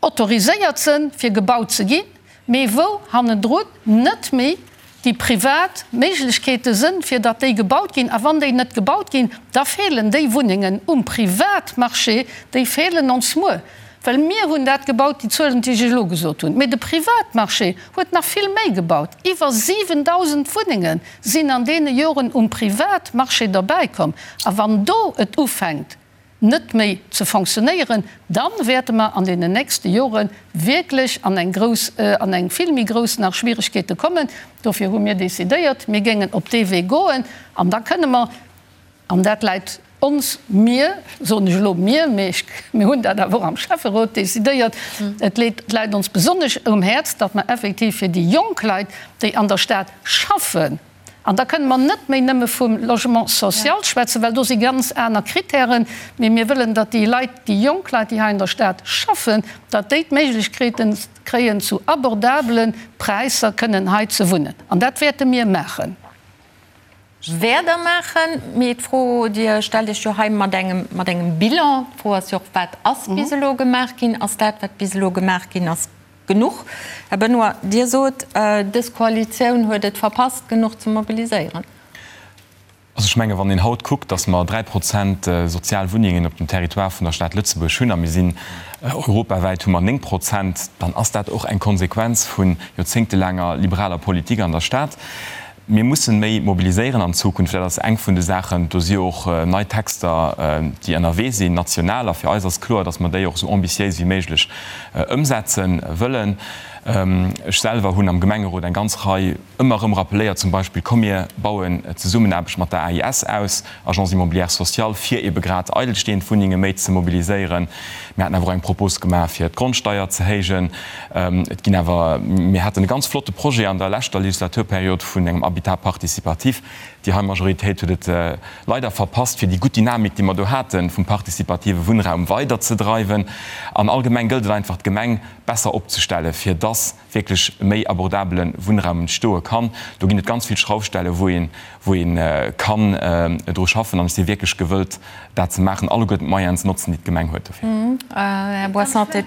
autoriséiert sënn fir gebaut ze ginn, mee wou hannendrun net méi déi privat Méiglechkeete sënn fir datt déi gebaut ginn. A wann déi net gebaut ginn, da feelen déi Wunnengen um Privatmarché, déi feelen ons muer. Well mir hunn dat gebaut, déi Zuelen, déi ech elo gesot hunn. Mee de Privatmarché huet nach vill méi gebaut. Iwwer 7.000 Wunnenge sinn an deene Joren um Privatmarché derbäikomm. A wann do et ufänkt, net méi ze fonctionnéieren, da wäerte mer an deenen nächste Jore wierklech an eng grouss, an eng vill méi grouss nach Schwieregkeete kommen. Dofir hu mir decidéiert, mir géingen op dee Wee goen an da kënne mer, an dat läit ons, mir, soen ech elo mir, mee ech, mir hunn dat awer och am Schäfferot decidéiert, et läit ons besonnesch um Häerz, datt mer effektiv fir déi jonk Leit, déi an der Stad schaffen, An da kënne mer net méi nëmme vum Logement social schwätzen, well do si ganz aner Kritären, mee mir wëllen, datt déi Leit, déi jonk Leit, déi hei an der Stad schaffen, datt déi d'Méiglechkeete kréien, zu abordabele Präisser kënnen hei ze wunnen. An dat wäerte mir maachen. Wäert Der maachen. Mee d'Fro, Dir stellt Iech jo hei mat engem, mat engem Bilan. D'Fro ass jo och, Wat ass bis elo gemaach ginn? Ass dat, wat bis elo gemaach ginn ass, Genuch. Här Benoy, Dir sot, dës Koalitioun huet et verpasst, genuch ze mobiliséieren. Also ech menge wann een haut kuckt, datt mer 3 Prozent sozial Wunnengen op dem Territoire vun der Stad Lëtzebuerg hunn a mir sinn europawäit hu mer 9 Prozent, dann ass dat och eng Konsequenz vu joerzéngtelaanger liberaler Politik an der Stad. Mir mussen méi mobiliséieren an Zukunft. Dat ass eng vun de Saachen. Do si jo och nei Texter, déi ënnerwee sinn, national. A fir eis ass kloer, datt mer déi och esou ambitiéis wéi méiglech ëmsetze wëllen. Ech selwer hunn am Gemengerot eng ganz Rei ëmmer erëm rappeléiert, zum Beispill, Komm mir bauen d'Zesummenaarbecht mat der AIS aus, Agence immobilière sociale, fir ebe grad eidelstehend Wunnenge méi ze mobiliséieren. Mir haten awer och eng Propos gemaach, fir d'Grondsteier ze héijen. Et ginn awer, mir haten e ganz flotte Projet an der leschter Legislaturperiod vun engem Habitat participatif. Déi hei Majoritéit huet et leider verpasst, fir déi gutt Dynamik, déi mer do haten, vum participative Wunnraum weiderzedreiwen. An allgemeng gëllt et einfach, d'Gemeng besser opzestellen, fir dass wierklech méi abordabele Wunnraum entstoe kann. Do ginn et ganz vill Schraufstelle wou een, wou ee kann dru schaffen. An ech si wierklech gewëllt, dat ze maachen, alleguerten d'Moyenen ze notzen, déi d'Gemeng huet dofir. Här Boissante,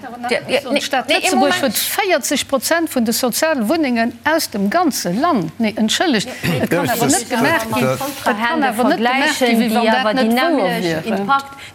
D'Stad Lëtzebuerg huet 40 Prozent vun de soziale Wunnengen aus dem ganze Land. Nee, entschëllegt, et kann awer net gemaach ginn, et kann awer net gemaach ginn, wéi wann dat net wouer wier.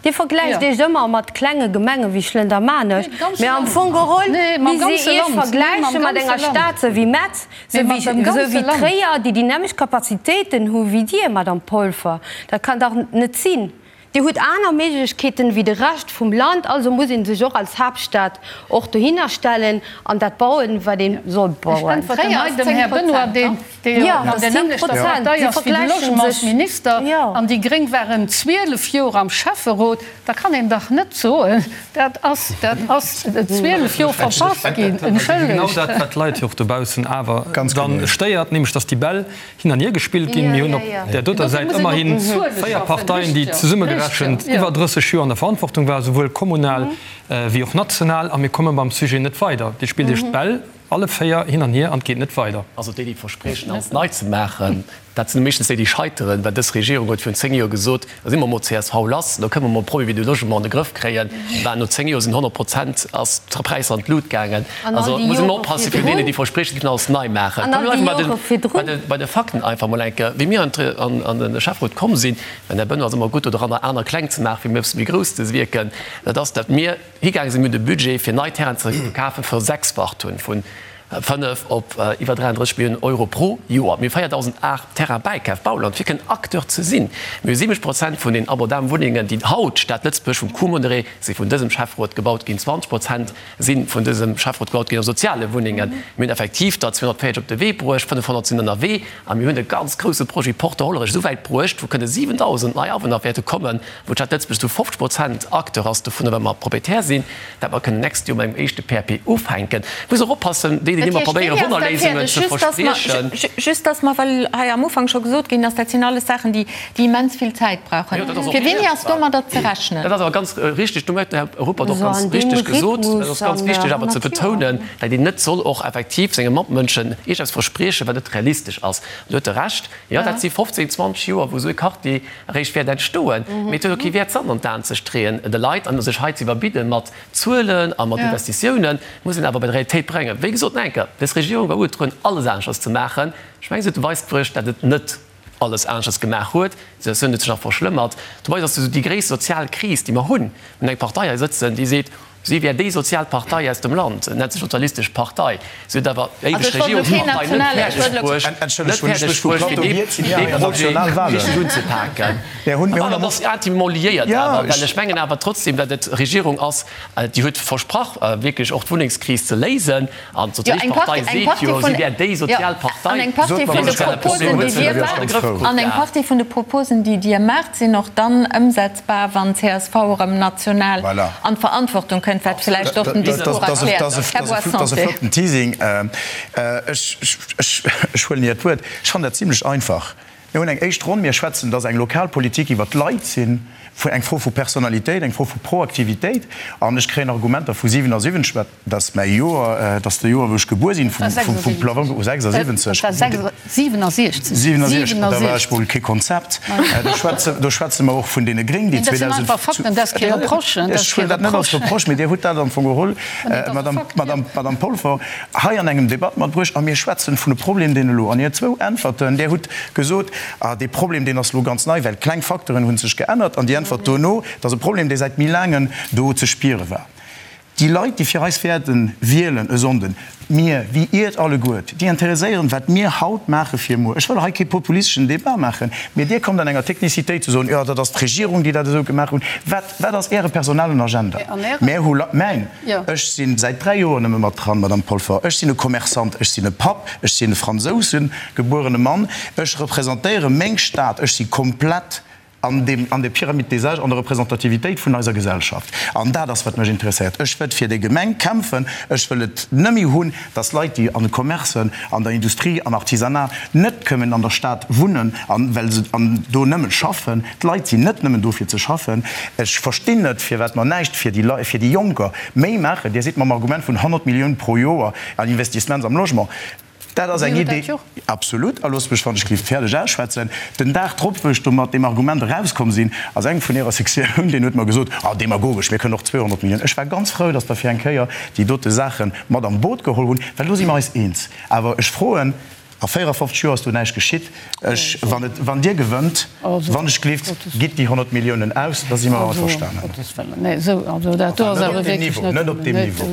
Dir vergläicht Iech ëmmer mat klenge Gemenge wéi Schlëndermaarnech, mä am Fong geholl misst Dir Iech vergläiche mat enger Stad sou wéi Metz, sou wéi Tréier, déi déi nämmlecht Kapazitéiten hu wéi Dir, Madame Polfer. Dat kann dach net sinn. Dir hutt aner Méiglechkeeten wéi de Rescht vum Land, also muss ee sech och als Haaptstad och dohinner stellen an dat bauen, wat ee soll bauen. Ech äntwerten hei dem Här Benoy, deen dee jo an der nämmlechter Partei ass wéi de Logementsminister, an déi Gréng waren 12 Joer am Schäfferot, da kann een dach net soen, dat ass, dat ass 12 Joer verpasst ginn. Entschëllegt. Genau dat, wat d'Leit jo och dobaussen awer dann stéiert, nämlech datt déi Bäll hin an hier gespillt ginn. Mir hunn op där doter Säit ëmmerhi 4 Parteien, déi zesummegerechent iwwer 30 Joer an der Verantwortung waren, souwuel kommunal wéi och national, a mir komme mam Sujet net weider. Dir spillt Iech d'Bäll alle 4 hin an hier an et geet net weider. Also déi, déi verspriechen, alles nei ze maachen, dat sinn meeschtens déi, déi scheiteren, well dës Regierung huet virun 10 Joer gesot, da si mer mol csv lass, da kënne mer mol de Problème du logement an de Grëff kréien. Bah, no 10 Joer sinn 100 Prozent ass d'Präisser an d'Lut gaangen. Also muss een oppassen virun deenen, déi verspriechen, si kënnen alles nei maachen. Bleiwe mer bei de Fakten einfach mol eng Kéier. Wéi mir an de Schäfferot komm sinn, mä den Här Benoy ass ëmmer gutt doranner, aner kleng ze maachen, fir méi e bësse méi grouss ze wierken, dat ass, datt mir higaange sinn, mir hunn de Budget fir nei Terrainen ze kafen versechsfacht hunn, vun. 5 op iwwer 33 Milliounen Euro pro Joer. Mir hu 4.000 Ar Terrain bäikaf, Bauland, fir kënnen Acteur ze sinn. Mir hu 70 Prozent vun den abordablen Wunnengen, déi haut d'Stad Lëtzebuerg vum Coût modéré si vun dësem Schäfferot gebaut ginn. 20 Prozent si vun dësem Schäfferot gebaut ginn a soziale Wunnengen. Mir hunn effektiv der 240 op de Wee bruecht, 500 sinn ënnerwee a mir hunn e ganz grouse Projet Porte Hollerech esou wäit bruecht, wou kënne 7.000 nei Awunner wäerte kommen, wou d'Stad Lëtzebuerg zu 50 Prozent Acteur ass dovunner, well mer Proprietär sinn, dat mer kënnen d'nächst Joer mat engem éischte PAP ufänken. Muss och oppassen, déi, déi ëmmer probéieren, Wonnerléisungen ze verspriechen. Just dass mer, well hei am Ufank scho gesot ginn ass, dat sinn alles Saachen, déi immens vill Zäit brauchen. Fir wéini ass domadder ze rechnen? Dat ass awer ganz richtig, do huet den Här Ruppert och ganz richtig gesot, dat ass ganz wichteg awer ze betounen, dat een net soll och effektiv senge Matmënschen iergendeppes verspriechen, wat net realistesch ass. Do huet e Recht. Jo, dat si 15, 20 Joer, wou esou e Quartier eréischt wäert entstoen. Mee et huet och kee Wäert, Sand an d'Aen ze streeën de Leit an sech hei ze iwwerbidde mat Zuelen a mat Investitiounen. Et muss een awer bei d'Realitéit bréngen. Wéi gesot, nach eng Kéier, dës Regierung war ugetrueden, alles aneschters ze maachen. Ech mengen, se huet de Weis bruecht, datt et net alles aneschters gemaach huet. D'Situatioun huet sech nach verschlëmmert. Dobei ass esou déi gréisst sozial Kris, déi mer hunn. Mir hunn eng Partei hei sëtzen, déi seet, Si wär déi sozial Partei aus dem Land, nennt sech Sozialistesch Partei. Si huet awer éiweg Regierungspartei net fäerdeg bruecht, net fäerdeg bruecht, fir dee Projet richteg unzepaken. An dat ass intimement liéiert awer, well ech mengen awer trotzdem, datt et Regierung ass, déi huet versprach, wierklech och d'Wunnengskris ze léisen. An d'Sozialistesch Partei seet jo, si wär déi sozial Partei. An eng Partie vun de Proposen, déi Dir maacht, an eng Partie vun de Proposen, déi Dir maacht, sinn och dann ëmsetzbar, wann csv erëm national an d'Verantwortung kënnt, wat vläicht och den Discours erkläert. Här Boissanté. Dat ass e flotten Teasing. Ech huelen Iert Wuert. Ech fannen dat zimlech einfach. Mir hunn eng éischt Ronn. Mir schwätzen, dass eng lokal Politik iwwert d'Leit sinn, eng Fro vu Personalitéit, eng Fro vu Proaktivitéit. An ech kréien Argumenter vu 77, wat, dat ass mäi Joer, dat ass de Joer, wou ech gebuer sinn, vum Plafong, oh, 76. 67. 67, da war ech mol kee Konzept. Do schwätze mer och vun deene Gréng, déi 2000. Dat sinn einfach Fakten, dat ass kee Reproche. Ech huelen dat net als Reproche, mee Dir hutt dat am Fong geholl, Madame Polfer. Hei an engem Debatt matbruecht a mir schwätzen vun e Problem, deen elo, an Är zwou Äntwerten, Där hutt gesot, ah, dee Problem, deen ass elo ganz nei, well kleng Facteuren hu sech geännert, an déi Äntwert dono, et ass e Problem, dee säit méi laangen do ze spiere war. Déi Leit, déi fir eis wäerte wielen e Sonnden, mir wéi Iert alleguert, déi interesséieren, wat mir haut maache fir muer. Ech wëll hei kee populisteschen Debat maachen, mee Dir kommt an enger Technicitéit ze soen, jo, dat ass d'Regierung, déi dat esou gemaach hunn. Wat, wat ass Äre personellen Agenda? Mär hu, mäin, Ech si säit 3 Joer nëmme mat dran, Madame Polfer. Ech sinn e Commerçant, ech sinn e Papp, ech sinn e Fransousen gebuerene Mann, ech representéiere meng Stad, ech si komplett an deem, an der Pyramide des âges, an der Representativitéit vun eiser Gesellschaft. An dat ass, wat mech interesséiert. Ech wëllt fir déi Gemeng kämpfen. Ech wëll et nëmme hunn, dass Leit, déi an de Commercen, an der Industrie, am Artisanat net kënnen an der Stad wunnen, an well se an do nëmmen schaffen, D'Leit sinn net nëmmen do fir ze schaffen. Ech verstinn net, firwat mer näischt fir déi Leit, fir déi Jonker méi maachen. Dir sidd mam Argument vun 100 Milliounen pro Joer an Investissements am Logement. Dat ass eng Idee. Absolut. A loosst mech, wann ech géif fäerdeg ausschwätzen. Den Dag drop, wou ech do mat deem Argument erauskomm sinn, ass eng vun Ärer Sektioun, deen huet mer gesot, Ah, demagogesch, mir kënnen och 200 Milliounen. Ech war ganz frou, datt Der fir eng Kéier déi dote Saache mat an d'Boot geholl hunn, well do si mer eis eens. Awer ech froen, A 54 Joer ass do näischt geschitt. Ech, wann et, wann Dir gewënnt, wann ech gleeft, gitt déi 100 Milliounen aus, da si mer averstanen. Enfin, net op deem Niveau, net op deem Niveau,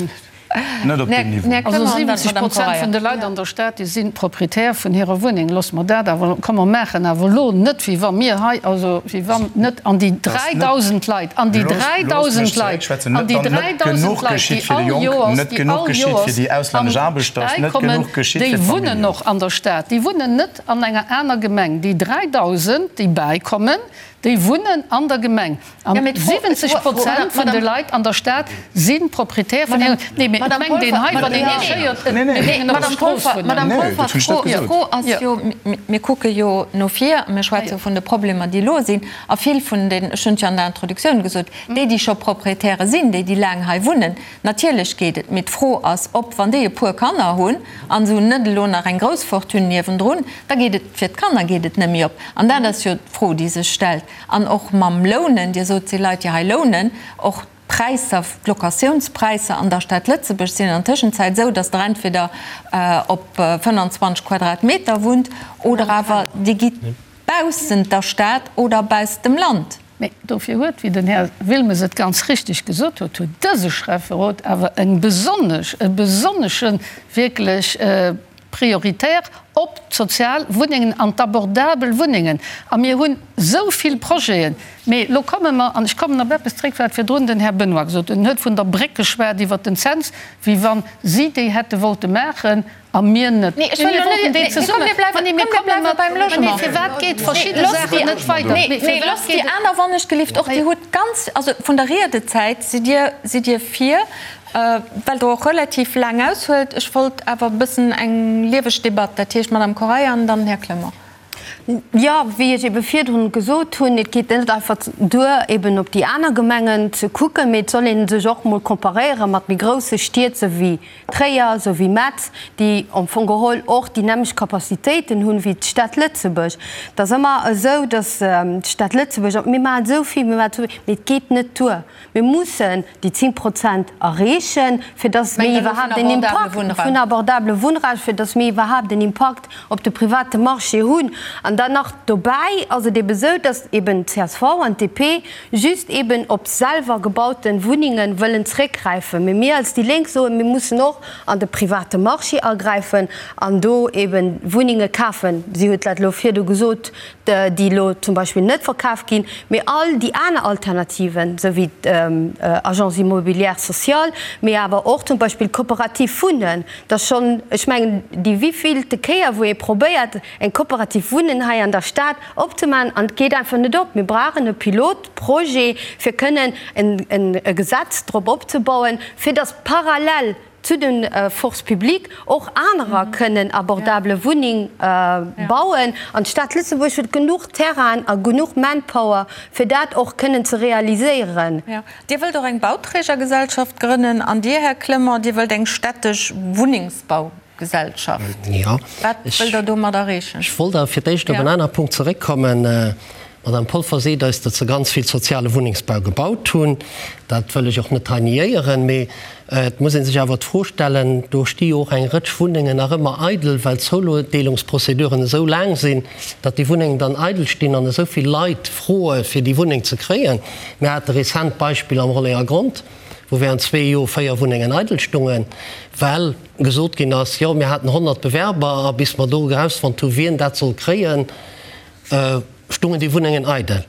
net op deem Niveau. Also 70 Prozent vun de Leit an der Stad, déi si Proprietär vun hirer Wunneng. Loosse mer dat awer, komm mer maachen awer elo net, wéi wa mir hei, also wéi wann net an déi 3.000 Leit, an déi 3.000 Leit, an déi 3.000 Leit, déi all Joers, déi all Joers am bäikommen, déi wunnen och an der Stad, déi wunnen net an enger aner Gemeng. Déi 3.000, déi bäikommen, déi wunnen an der Gemeng. An 70 Prozent vun de Leit an der Stad si Proprietär vun hiren. Nee, mee et mengt een hei, wann een iech héiert, mir géingen op der Strooss wunnen. Madame Polfer, d'Fro ass jo, mir kucke jo no vir, mir schwätze vun de Problemer, déi elo sinn, a vill vun den, ech hunn et jo an der Introduktioun gesot, déi, déi scho Proprietäre sinn, déi, déi laang hei wunnen, Natierlech geet et, mee d'Fro ass, ob, wann déi e puer Kanner hunn an se hunn net elo nach eng grouss Fortune niewendrun, da geet et, fir d'Kanner geet et net méi op. An dat ass jo d'Fro, déi sech stellt. An och mam Lounen, Dir sot, et si Leit, déi hei lounen, och d'Präisser, d'Locatiounspräisser an der Stad Lëtzebuerg sinn an der Tëschenzäit esou, datt Der entweder op 25 Quadratmeter wunnt oder awer Dir gitt baussent der Stad oder baussent dem Land. Mee dofir huet, wéi den Här Wilmes et ganz richtig gesot huet, huet dëse Schäfferot awer eng besonnesch, e besonnesche wierklech prioritär op d'sozial Wunnengen an d'abordabel Wunnengen. A mir hunn esou vill Projeten. Mee elo komme mer, an ech kommen op eppes zréck, wat virdrun den Här Benoy gesot huet, en huet vun der Bréck geschwat iwwert den Cents, wéi wa si déi hätte wollte maachen a mir net. Nee, ech wëll elo net, nee, komm, mir bleiwen, komm, mir bleiwe beim Logement. Mee firwat geet verschidde Saachen net weider? Nee, nee, loosst déi aner wannechgelift och. Dir hutt ganz, also vun der Riedezäit sidd Dir, sidd Dir vir, well Der och relativ laang aushuelt. Ech wollt awer e bëssen eng lieweg Debatt, dat heescht d'Madame Correia an dann den Här Clement. Jo, wéi ech ebe virdrun gesot hunn, et geet net einfach duer, eben op déi aner Gemengen ze kucken, mee et soll ee sech och mol comparéiere mat méi grousse Stied, sou wéi Tréier, sou wéi Metz, déi am Fong geholl och déi nämmlecht Capacitéiten hunn wéi d'Stad Lëtzebuerg. Et ass ëmmer esou, datt d'Stad Lëtzebuerg, mir maachen esou vill, mir maachen esou vill, mee et geet net duer. Mir mussen déi 10 Prozent erreechen, fir dass mir iwwerhaapt en Impakt vun abordabele Wunnraum, fir dass mir iwwerhaapt en Impakt op de private Marché hunn. An dann nach dobäi ass et eben esou, dass eben csv an d'DP just eben op selwer gebaute Wunnenge wëllen zréckgräifen. Mee mir als déi Lénk soen, mir mussen och an de private Marché agräifen an do eben Wunnenge kafen. Si huet dat elo virdu gesot, déi elo zum Beispill net verkaf ginn, mee all déi aner Alternativen, esou wéi d'Agence immobilière sociale, mee awer och zum Beispill d'Coopérative Wunnen, dat ass schonn, ech mengen, déi wivillte Kéier, wou ee probéiert, eng Coopérative Wunnen hei an der Stad opzemaachen, an et geet einfach net op. Mir brauchen e Pilotprojet, fir kënnen e Gesetz drop opzebauen, fir datt parallel zu de Forces publiques och anerer kënnen abordable Wunneng bauen. An d'Stad Lëtzebuerg huet genuch Terrainen a genuch Manpower, fir dat och kënnen ze realiséieren. Dir wëllt och eng Bauträgergesellschaft grënnen. An Dir, Här Clement, Dir wëllt eng städtesch Wunnengsbaugesellschaft. Wat wëllt Der domat erreechen? Ech wollt awer fir d'éischt op en anere Punkt zeréckkommen. D'Madame Polfer seet eis, datt se ganz vill soziale Wunnengsbau gebaut hunn. Dat wëll ech och net hei niéieren. Mee et muss ee sech awer d'Fro stellen, do sti jo och eng Rëtsch Wunnengen nach ëmmer eidel, well d'Zoudeelungsprozeduren esou laang sinn, datt déi Wunnengen dann eidel stinn an esou vill Leit froe fir déi Wunneng ze kréien. Mir hate rezent d'Beispill am Rollengergrond, wou während zwee Joer véier Wunnengen eidel stungen, well gesot ginn ass, jo mir haten 100 Bewerber a bis mer do erausfonnt hu wien dat soll kréien, stungen déi Wunnengen eidel.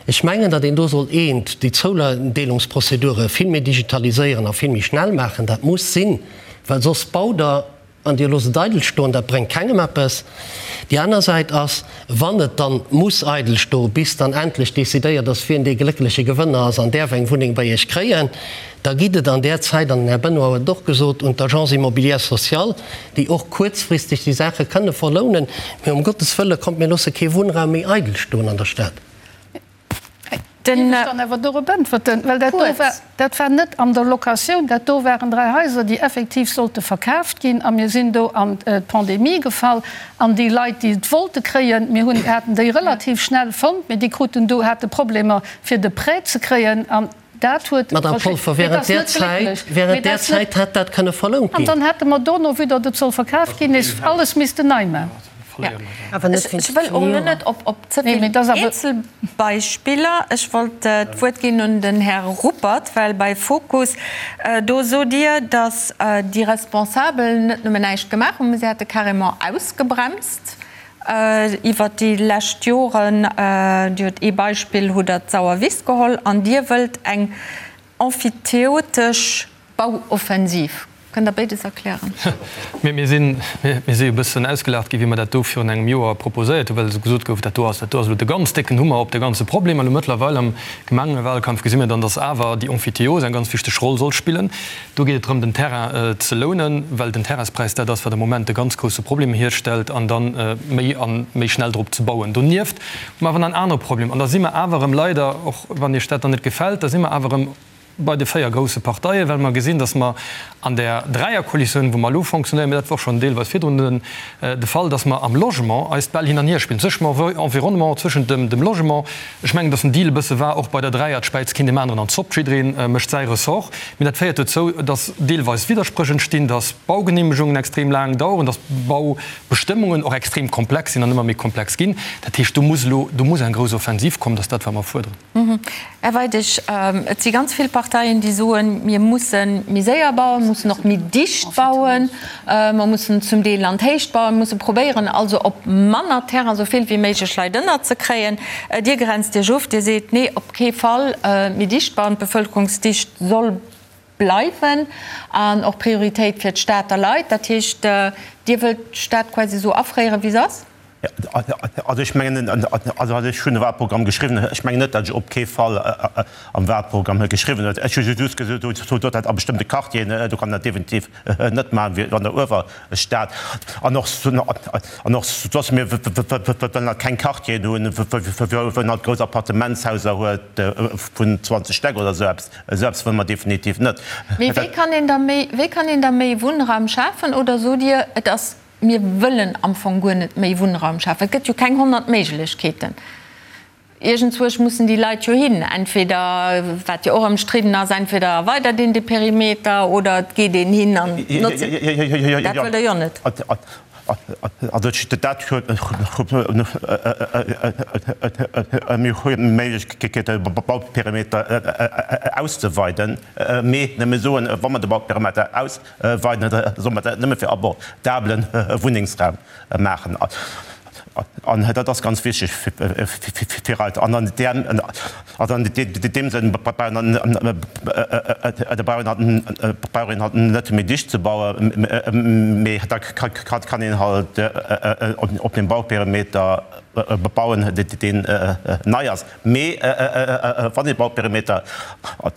Ech mengen, datt een do sollt eent, déi Zoudeelungsprozedure vill méi digitaliséieren a vill méi schnell maachen. Dat muss sinn, well soss baut Der an Dir loosst et eidel stoen. Dat bréngt kengem eppes. Déi aner Säit ass, wann et dann muss eidel stoen, bis dann endlech decidéiert ass, wien dee gléckleche Gewënner ass an däerf eng Wunneng bei Iech kréien, da gitt et an där Zäit, an den Här Benoy huet et och gesot, un d'Agence immobilière sociale, déi och kuerzfristeg déi Saache kënne verlounen. Mee um Gottes Wëlle, kommt, mir loosse kee Wunnraum méi eidel stoen an der Stad. Dierf ech dann awer dorop äntwerten? Well dat do war, dat war net an der Locatioun, dat do waren 3 Haiser, déi effektiv sollte verkaaft ginn a mir sinn do an d'Pandemie gefall an déi Leit, déi et wollte kréien, mir hunn, haten déi relativ schnell fonnt, mee déi kruten do, hate Problemer fir de Prêt ze kréien an dat huet Madame Polfer, während där Zäit, während där Zäit hätt dat kënne verlount ginn. An dann hätte mer dono, vue datt et soll verkaaft ginn, nees alles missten nei maachen. Ech wëll och elo net op ze vill Eenzelbeispiller. Ech wollt d'Wuert ginn un den Här Ruppert, well bei Fokus, do sot Dir, datt déi Responsabel net nëmmen näischt gemaach hunn, mä se hätte carrément ausgebremst iwwert déi lescht Joren. Dir hutt ee Beispill, hutt Der d'Sauerwiss geholl an Dir wëllt eng emphytéotesch Bauoffensiv. Kënnt Der béides erklären? Mir sinn, mir si e bëssen ausgelaacht ginn, wéi mer dat do virun engem Joer proposéiert hunn, well esou gesot gouf, dat do ass, dat do ass elo de ganz décken Hummer op de ganze Problem. An elo mëttlerweil am Gemengewahlkampf gesi mir dann, dass awer déi Emphytéose eng ganz wichteg Roll soll spillen. Do geet et drëm, den Terrain ze lounen, well den Terrainspräis dat ass, wat am Moment de ganz grousse Problem hierstellt, an dann méi a méi schnell drop ze bauen. Donieft hu mer awer nach en anere Problem, an da si mer awer erëm leider, och wann Iech dat dann net gefält, da si mer awer erëm. bei de 4 grousse Parteien, well mer gesinn, datt mer an där Dräierkoalitioun, wou mer elo fonctionnéieren, mä dat war och schonn deelweis virdrun de Fall, datt mer am Logement eis d'Bäll hin an hier spillen, zwëschent dem Environnement, zwëschent dem Logement. Ech mengen, datt den Deal e bësse war, och bei der Dräier, et späizt keen deem aneren an d'Zopp, jidderee mécht säi Ressort. Mä dat féiert dozou, datt deelweis Widderspréch entstinn, datt Baugenehmegungen extrem laang daueren, datt Baubestëmmungen och extrem komplex sinn an ëmmer méi komplex ginn. Dat heescht, do muss elo, do muss eng grouss Offensiv kommen, dat ass dat, wat mer fuerderen. Här Weidig, et si ganz vill Parteien, déi soen, mir musse méi séier bauen, mussen och méi dicht bauen, mer mussen zum Deel an d'Héicht bauen, musse probéieren also op manner Terrain esou vill wéi méiglech Leit ënnerzekréien. Dir grenzt Iech of, Dir seet, nee, op kee Fall méi dicht bauen, d'Bevëlkerungsdicht soll bleiwen an och Prioritéit fir d'Stater Leit. Dat heescht, Dir wëllt d'Stad quasi esou afréieren, wéi se ass? Also ech mengen, also ech hunn e Wahlprogramm geschriwwen, ech mengen net, datt ech op kee Fall am Wahlprogramm geschriwwen huet. Ech hu just gesot, datt a bestëmmte Quartieren, do kann een dat definitiv net maachen, wéi an der Uewerstad. An och, an och soss, mir wëllen halt keng Quartieren hunn, wou een halt grouss Appartementshaiser huet vun 20 Stäck oder esou eppes. Esou eppes wëlle mer definitiv net. Mee wéi kann een da méi, wéi kann een da méi Wunnraum schafen? Oder sot Dir, et ass Mir wëllen am Fong guer net méi Wunnraum schafen. Et gëtt jo keng 100 Méiglechkeeten. Iergendzwousch mussen déi Leit jo hin. Entweder, wat jo och ëmstridden ass, entweder erweidert een de Perimeter oder et geet een hin an notzt. Dat wëllt Der jo net. Also dat huet mir hu d'Méiglechkeet, de Bauperimeter auszeweiden. Mee nëmme soen, wa mer de Bauperimeter aus. Weiden, da soll mer dat nëmme fir abordablen Wunnengsraum maachen. An dat ass ganz wichteg fir eis. An an deem Sënn brauch een halt net méi dicht ze bauen, mee da kann een halt op dem Bauperimeter bauen, deen nei ass. Mee wann ee Bauperimeter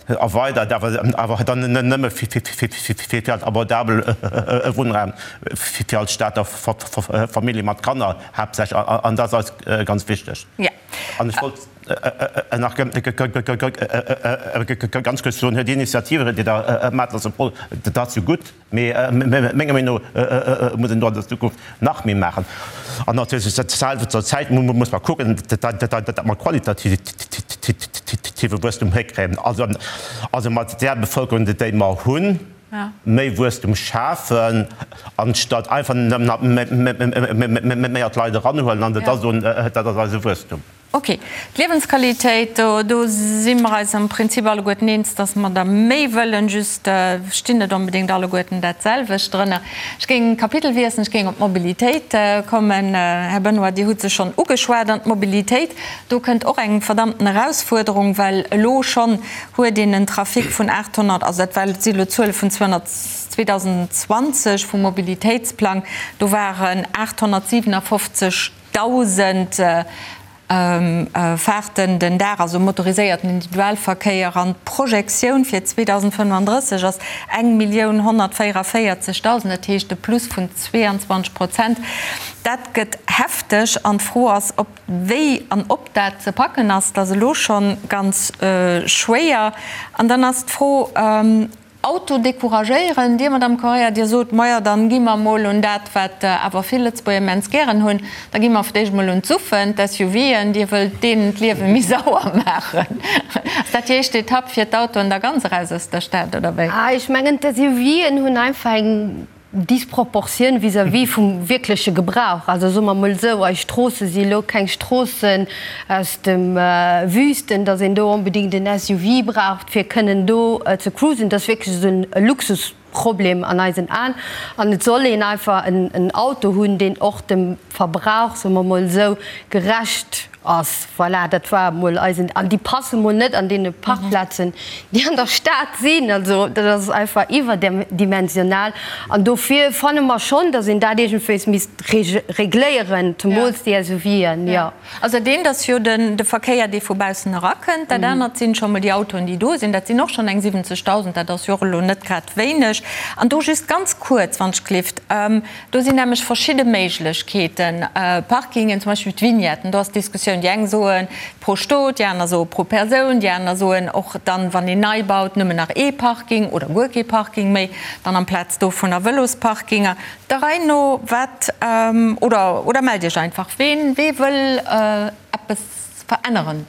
erweidert, awer dann nëmme fir als abordabel Wunnraum fir als Stater Famillje mat Kanner haaptsächlech, an dat ass eis ganz wichteg. An ech wollt nach ganz kuerz soen, déi Initiative, déi Der maacht, ass dat ass jo gutt. Mee menger Meenung no muss een do an der Zukunft nach méi maachen. An natierlech zur Zäit muss mer kucken, datt mer qualitative Wuesstum hikréien. Also mat där Bevëlkerung, déi mer hunn, méi Wuesstum schafen, anstatt einfach nëmmen méi Leit eranhuelen an da soen, dat ass eise Wuesstum. Ok, d'Liewensqualitéit, do si mer eis am Prinzip alleguerten eens, dass mer der méi wëllen, just stinn net onbedéngt alleguerten dat selwecht drënner. Ech géing Kapitel wiesselen, ech géing op d'Mobilitéit kommen. Här Benoy, Dir hutt se schonn ugeschwat. An d'Mobilitéit, do kënnt och eng verdammten Erausfuerderung, well elo schonn huet een en Trafic vun 800, also dat war, si elo Zuele vun 2020 vum Mobilitéitsplang, do waren 857, 1.000 Faarten den Dag, also motoriséierten Individualverkéier, an d'Projektioun fir 2035 ass 1.144.000, dat heescht e Plus vun 22 Prozent. Dat gëtt hefteg an d'Fro ass, ob, wéi an ob dat ze packen ass. Dat ass elo scho ganz schwéier. An dann ass d'Fro, Auto decouragéieren. Dir, Madame Correia, Dir sot, Majo, dann gi mer emol un dat, wat awer vill Lëtzebuerger immens gären hunn, da gi mer fir d'éischt emol un d'Suffen, d'SUVen. Dir wëllt deenen d'Liewe méi sauer maachen. Ass dat déi éischt Etapp, fir d'Autoen da ganz eraus aus der Stad, oder wéi? Ech mengen, d'SUVen hunn einfach eng Disproportioun vis-à-vis vum wierkleche Gebrauch. Also soe mer emol esou, eis Stroosse si elo keng Stroossen aus dem Wüsten, datt een do onbedéngt en SUV braucht, fir kënnen do ze cruisen. Dat ass wierklech esou e Luxusproblem an eisen Aen. An et soll een einfach en Auto hunn, deen och dem Verbrauch, soe mer emol esou, gerecht Ass. Voilà, dat war emol eisen. An déi passe mol net an deene Parkplazen, déi an der Stad sinn. Also dat ass einfach iwwerdimensional. An dofir fanne mer schonn, datt een dat iergendwéis misst regléieren, zemools déi SUVen, jo. Also dat eent ass jo de Verkéier, dee vu baussen erakënnt. Dat anert sinn scho mol déi Autoen, déi do sinn. Dat sinn och schonn eng 70.000, dat ass jo och elo net grad wéineg. An do just ganz kuerz, wann ech gelift, do sinn nämlech verschidde Méiglechkeeten. Mobilitéiten, Parkingen, zum Beispill d'Vignetten, do ass d'Diskussioun, déi eng soen pro Stot, déi aner soe pro Persoun, déi aner soen och dann, wann een nei baut, nëmmen nach ee Parking oder guer kee Parking méi, dann amplaz dovunner Vëlosparkinger. Der Rei no, wat, oder, oder mellt Iech einfach, ween, wee wëll eppes veränneren?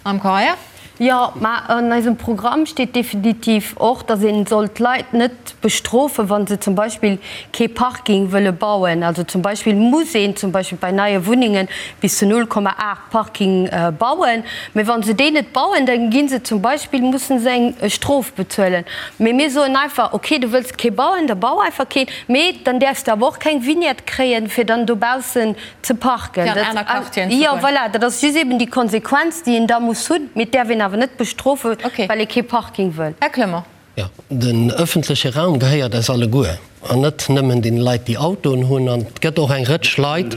Am Correia? Jo, mä an eisem Programm steet definitiv och, datt ee soll d'Leit net bestrofen, wa se zum Beispill kee Parking wëlle bauen. Also zum Beispill muss een zum Beispill bei neie Wunnenge bis zu 0,8 Parking bauen. Mä wa se déi net bauen, da gi se zum Beispill, mussen se eng Strof bezuelen. Mee mir soen einfach, okay, du wëlls kee bauen, da bau einfach keen, mee dann däerfs de awer och keng Vignette kréien, fir dann dobaussen ze parken. Fir an aner Quartieren ze Jo, goen. voilà, dat ass just eben déi Konsequenz, déi een da muss hunn. Mee et däerf een awer net bestrofen, Okay. well ee kee Parking wëll. Här Clement. Jo, den öffentleche Raum gehéiert eis alleguer an net nëmmen deene Leit, déi Autoen hunn. An et gëtt och eng Rëtsch Leit,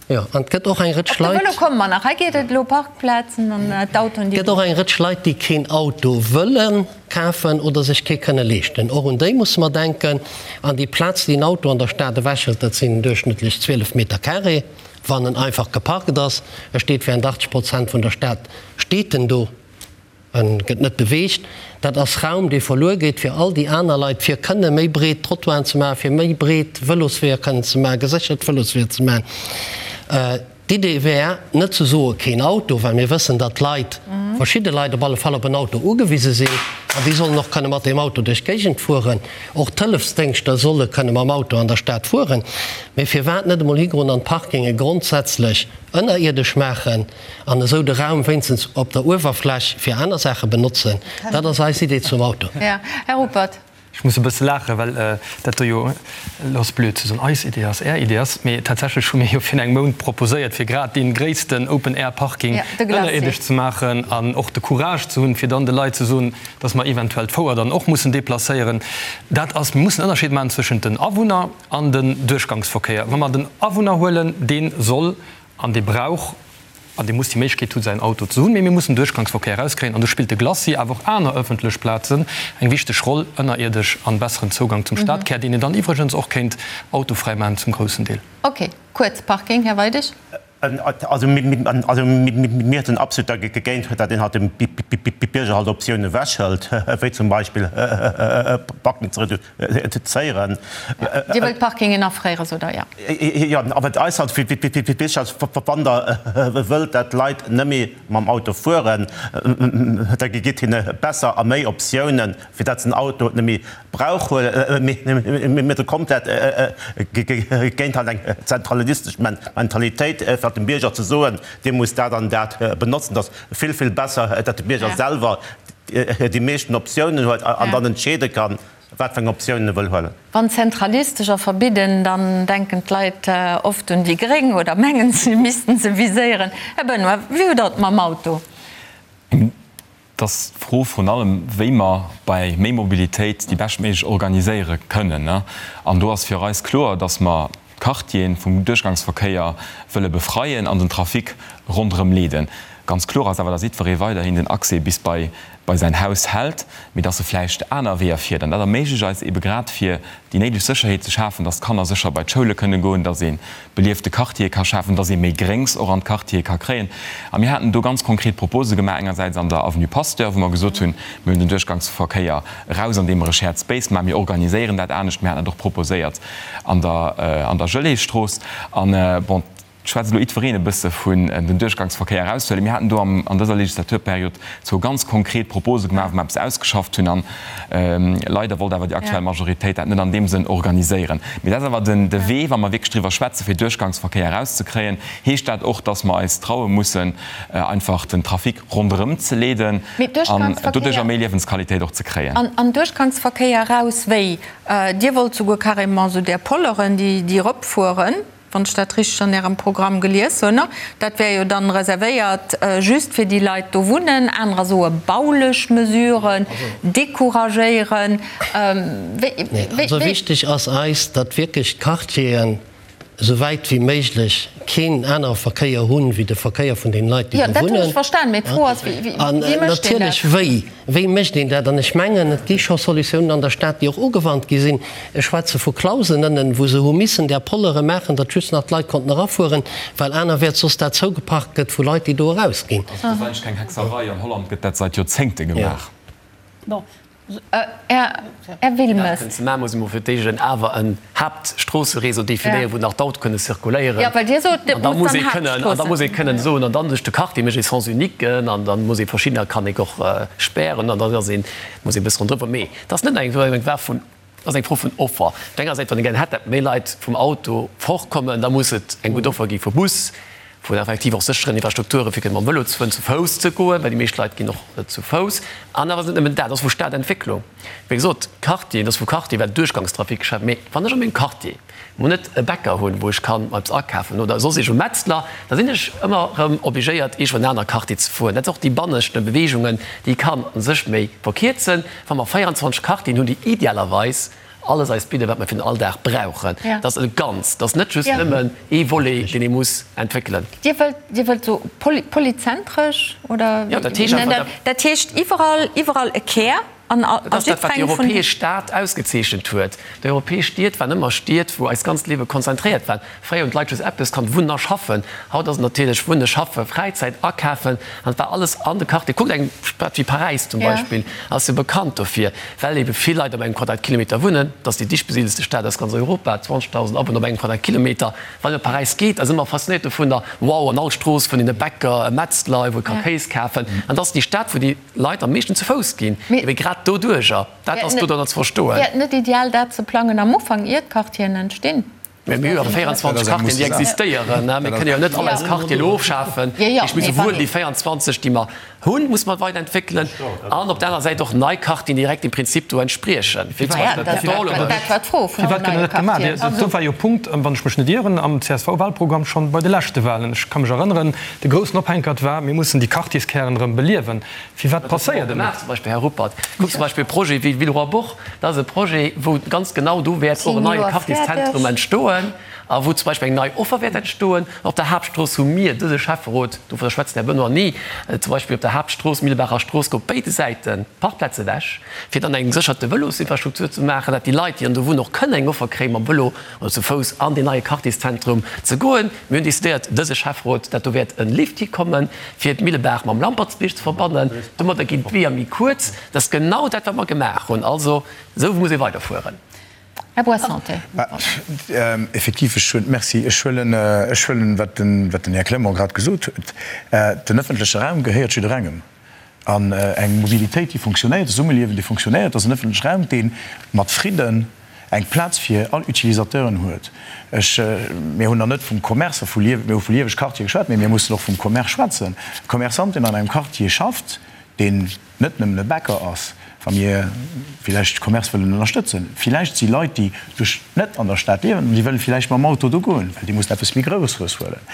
jo, an et gëtt och eng Rëtsch Op de Leit, Vëlo komme mer nach. Hei geet et elo Parkplazen an d'Autoen, déi. Et gëtt och eng Rëtsch Leit, déi keen Auto wëlle kafen oder sech kee kënne leeschten. Och un déi musse mer denken. An déi Plaz, déi en Auto an der Stad ewechhëlt, dat sinn duerchschnëttlech 12 Meter carré, wann en einfach geparkt ass. E steet während 80 Prozent vun der Stad steet en do, en gëtt net beweegt. Dat ass Raum, dee verluer geet fir all déi aner Leit, fir kënne méi breet Trottoiren ze maachen, fir méi breet Vëlosweeër kënnen ze maachen, geséchert Vëlosweeër ze maachen. D'Idee wär, net ze soe keen Auto, well mir wëssen, datt d'Leit, verschidde Leit op alle Fall, op en Auto ugewise sinn an déi sollen och kënne mat deem Auto duerch d'Géigend fueren. Och d'Hëllefsdéngschter solle kënne mam Auto an der Stad fueren. Mee firwat net emol higoen an d'Parkinge grondsätzlech ënnerierdesch maachen an esou de Raum wéinstens op der Uewerfläch fir aner Saache benotzen? Dat ass eis Idee zum Auto. Här Ruppert. Ech muss e bësse laachen, well dat do jo, elo ass blöd ze soen, eis Idee ass, Är Idee ass, mee tatsächlech hu mir jo virun engem Mount proposéiert, fir grad dee gréissten Open-Air-Parking ënnerierdesch ze maachen an och de Courage ze hunn, fir dann de Leit ze soen, dass mer eventuell d'Fouer dann och mussen deplacéieren. Dat ass, mir mussen en Ënnerscheed maachen zwëschent den Awunner an den Duerchgangsverkéier. Wa mer den Awunner huelen, dee soll an dee brauch an dee muss déi Méiglechkeet hunn, säin Auto ze hunn. Mee mir mussen Duerchgangsverkéier erauskréien an do spillt de Glacis, awer och aner ëffentlech Plazen eng wichteg Roll, ënnerierdesch an besseren Zougang zum Stadkär, deen een dann iwwregens och kéint autofräi maachen zum groussen Deel. Ok, kuerz, Parking, Här Weidig. Also mir sinn absolut dergéint, datt een halt dem Bierger halt Optiounen ewechhëlt, wéi zum Beispill Parking ze reduzéieren. Dir wëllt Parkingen afréieren, sot Der, jo. Jo, a wat eis halt wichteg ass, wann Der wëllt, datt d'Leit net méi mam Auto fueren, da gitt hinne besser a méi Optiounen, fir datt se den Auto net méi brauch, mee do kommt dat géint halt eng zentralistesch Mentalitéit, fir dem Bierger ze soen, dee muss dat an dat benotzen. Et ass vill, vill besser, datt de Bierger selwer déi meeschten Optiounen huet an dann entscheede kann, wat fir eng Optiounen e wëll huelen. Wann zentralistesch a verbidden, dann denken d'Leit oft un déi Gréng oder mengen, si missten se viséieren. Här Benoy, wéi hutt Der et mam Auto? Et ass d'Fro vrun allem, wéi mer bei méi Mobilitéit déi beschtméiglech organiséiere kënnen. An do ass fir eis kloer, dass mer d'Quartiere vum Duerchgangsverkéier wëlle befreien an den Trafic ronderëm leeden. Ganz kloer ass awer, dass jiddweree weiderhin den Accès bis bei bei säin Haus hält, mee dass e vläicht aner Weeër fiert. An dat erméiglecht eis eebe grad, fir déi néideg Sécherheet ze schafen, dass d'Kanner sécher bei d'Schoule kënne goen, dass ee beliefte Quartiere ka schafen, dass ee méi Gréngs och an d'Quartiere ka kréien. A mir haten do ganz konkret Propose gemaach, engersäits an der Avenue Pasteur, wou mer gesot hunn, mir hunn den Duerchgangsverkéier eraus, andeem mer e Shared Space maachen, mir organiséieren dat anescht. Mir haten dat och proposéiert an der an der Geleeëstrooss. An, bon, et schwätzt elo jiddwereen e bësse vun den Duerchgangsverkéier eraushuelen. Mir haten do am an dëser Legislaturperiod zwou ganz konkret Propose gemaach, wou mer eppes ausgeschafft hunn. An leider wollt awer déi aktuell Majoritéit dat net an deem Sënn organiséieren. Mee dat ass awer den de Wee, wa mer wierklech driwwer schwätzen, fir Duerchgangsverkéier erauszekréien, heescht dat och, dass mer eis traue mussen, einfach den Trafic ronderëm ze leeden an doduercher méi Liewensqualitéit och ze kréien. An Duerchgangsverkéier eraus wéi? Dir wollt souguer carrément esou där Polleren, déi eropfueren. Wann ech dat richteg an Ärem Programm gelies hunn, dat wär jo dann reservéiert just fir déi Leit do wunnen. Anerer soe baulech Mesuren, decouragéieren. Wéi. Also wichteg ass eis, datt wierklech d'Quartieren. Esou wäit wéi méiglech keen anere Verkéier hunn, wéi de Verkéier vun den Leit, déi do wunnen. An natierlech, wéi, wéi mécht een dat? An ech mengen, et gi scho Solutiounen an der Stad, déi och ugewannt gi sinn. Ech schwätze vu Clausen ënnen, wou se hu missen där Pollere maachen, datt just nach d'Leit konnten erafueren, well anerwäerts soss dat zougeparkt gëtt vu Leit, déi do erausginn. Also dat ass eigentlech keng Hexerei. An Holland gëtt dat seit Joerzéngte gemaach. Här Wilmes. Dat ze maachen, muss ee mol fir d'éischt en awer en Haaptstroosse-Réseau definéieren, wou nach d'Autoe kënne zirkuléieren. Jo, well Dir sot, et muss dann Haaptstroossen. An da muss ee kënnen soen, an dann duerch de Quartier mécht ee Sens unique an da muss ee verschiddener kann een och spären an dann ass een, muss ee e bësse ronderëm. Mee et ass net eng Saach vun, et ass eng Fro vun Offer. Op der enger Säit, wann ee gären hätt, datt méi Leit vum Auto fortkommen, da muss et eng gutt Offer gi vu Bus, vun effektiv och sécheren Infrastrukture fir kënne mam Vëlo ze fueren, zu Fouss ze goen, well déi meescht Leit ginn och zu Fouss. An awer ass et net nëmmen dat, et ass vu Stadentwécklung. Wéi gesot, Quartier, et ass vu Quartier, well Duerchgangstrafic geschwat. Mee wann ech a mengem Quartier mol net e Bäcker hunn, wou ech kann eppes akafen oder soss iergend e Metzler, da sinn ech ëmmer erëm obligéiert, iergendwou an en aner Quartier ze fueren. Dat ass och déi banneschte Beweegungen, déi kann u sech méi verkierzen, wa mer 24 Quartieren hunn, déi idealerweis alles eis bidden, wat mer fir den Alldag brauchen. Dat ass e Ganzt, dat ass net just nëmmen ee Volet, deen ee muss entwéckelen. Dir wëllt, Dir wëllt esou polyzentresch oder? Jo, dat heescht einfach, dat. Dat heescht iwwerall, iwwerall e Kär an a Dat ass dat, wat déi jiddwerengem vun. europäesch Stad ausgezeechent huet. Déi europäesch Stied waren ëmmer Stied, wou eist ganzt Liewe konzentréiert war. Fréier hunn d'Leit just eppes kannt, wunnen a schaffen. Haut ass et natierlech wunnen, schaffen, Fräizäit, akafen an et war alles an de Quartier. Kuckt eng Stad wéi Paräis zum Beispill, ass jo bekannt dofir, well ebe vill Leit op engem Quadratkilometer wunnen. Et ass déi dicht besidelste Stad aus ganz Europa, 20.000 Awunner op engem Quadratkilometer. Wann een op Paräis geet, ass ëmmer faszinéiert dovunner, wow, an all Strooss fënnt een e Bäcker, e Metzler, wou ee ka Kéis kafen. An et ass déi Stad, wou déi Leit am meeschten zu Fouss ginn, ebe grad doduerjer. Dat ass do dann ze verstoen. Wär et net ideal, dat ze plangen am Ufank, ier d'Quartieren entstinn? Mä mir hu jo awer 24 Quartieren, déi existéieren. Mir kënnen jo net all eis Quartiere elo ofschafen. Ech muss souwuel déi 24, déi mer hunn, muss mer weiderentwéckelen an op der anerer Säit och nei Quartieren, déi direkt dem Prinzip do entspriechen, wéi zum Beispill Porte d'Or oder. Firwat gëtt dat net gemaach? Do war jo e Punkt, wann ech mech net ieren, am CSV-Wahlprogramm schonn bei de leschte Wahlen. Ech ka mech erënneren, de groussen Ophänkert war, mir mussen déi Quartierskären erëm beliewen. Firwat passéiert et net? Zum Beispill, Här Ruppert, kuckt zum Beispill e Projet wéi Villeroy-Bourg, dat ass e Projet, wou ganz genau do wäert och en neie Quartierszentrum entstoen a wou zum Beispill eng nei Offer wäert entstoen. Op der Haaptstrooss hu mir, dëse Schäfferot, dovunner schwätzt den Här Benoy ni, zum Beispill op der Haaptstrooss, Millebaacher Strooss, gouf béide Säite Parkplaze ewech, fir dann eng gesécherte Vëlosinfrastruktur ze maachen, dat déi Leit, déi dann do wunnen, och kënnen eng Offer kréien, mam Vëlo oder zu Fouss an deen neie Quartierszentrum ze goen. Mir hunn decidéiert, dëse Schäfferot, dat do wäert e Lift hikommen, fir d'Millebaach mam Lampertsbierg ze verbannen. Domadder ginn d'Weeër méi kuerz. Dat ass genau dat, wat mer gemaach hunn. Also, esou muss ee weiderfueren. Här Boissanté. Effektiv, ech hunn, merci, ech huelen, ech huelen, wat den, wat den Här Clement grad gesot huet. Den öffentleche Raum gehéiert jidderengem. An eng Mobilitéit, déi funktionéiert, e Zesummeliewen, dee funktionéiert, ass en öffentleche Raum, dee mat Fridden eng Plaz fir all Utilisateuren huet. Ech, mir hunn nach net vum Commerce a vu Liew, mir hu vu lieweg Quartiere geschwat, mee mir mussen och vum Commerce schwätzen. E Commerçant, deen an engem Quartier schafft, deen net nëmmen e Bäcker ass, wa mir villäicht Commerce wëllen ënnerstëtzen, villäicht si Leit, déi duerch net an der Stad liewen, an déi wëlle villäicht mam Auto do goen, well déi mussen eppes méi Grouesseres huelen.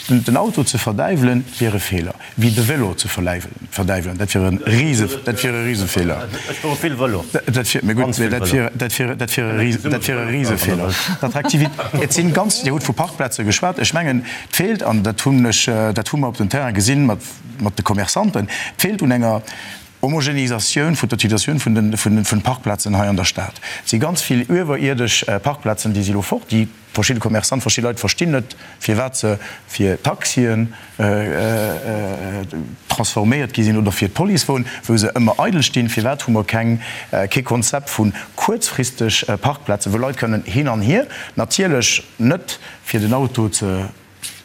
Den Auto ze verdäiwelen, wier e Feeler, wéi de Vélo ze verdäiwelen, dat wier e rise, dat wier e Risefeeler. Ech fuere vill Vélo. Dat wier, mee gutt, mee dat wier, dat wier, dat wier e rise, dat wier e Risefeeler. D'Attraktivit, et sinn ganz, Dir hutt vu Parkplaze geschwat, ech mengen, et feelt, an dat hunn ech, dat hu mer op dem Terrain gesinn mat, mat de Commerçanten, et feelt un enger Homogenisatioun vun der Utilisatioun vun den, vun den, vun den Parkplazen hei an der Stad. Et si ganz vill iwwerierdesch Parkplazen, déi si elo fort, déi verschidde Commerçanten, verschidde Leit verstinn net, firwat se fir Taxien transforméiert gi sinn oder fir d'Policewon, wou se ëmmer eidel stinn. Firwat hu mer keng, kee Konzept vu kuerzfristeg Parkplazen, wou Leit kënnen hin an hier, natierlech net fir den Auto ze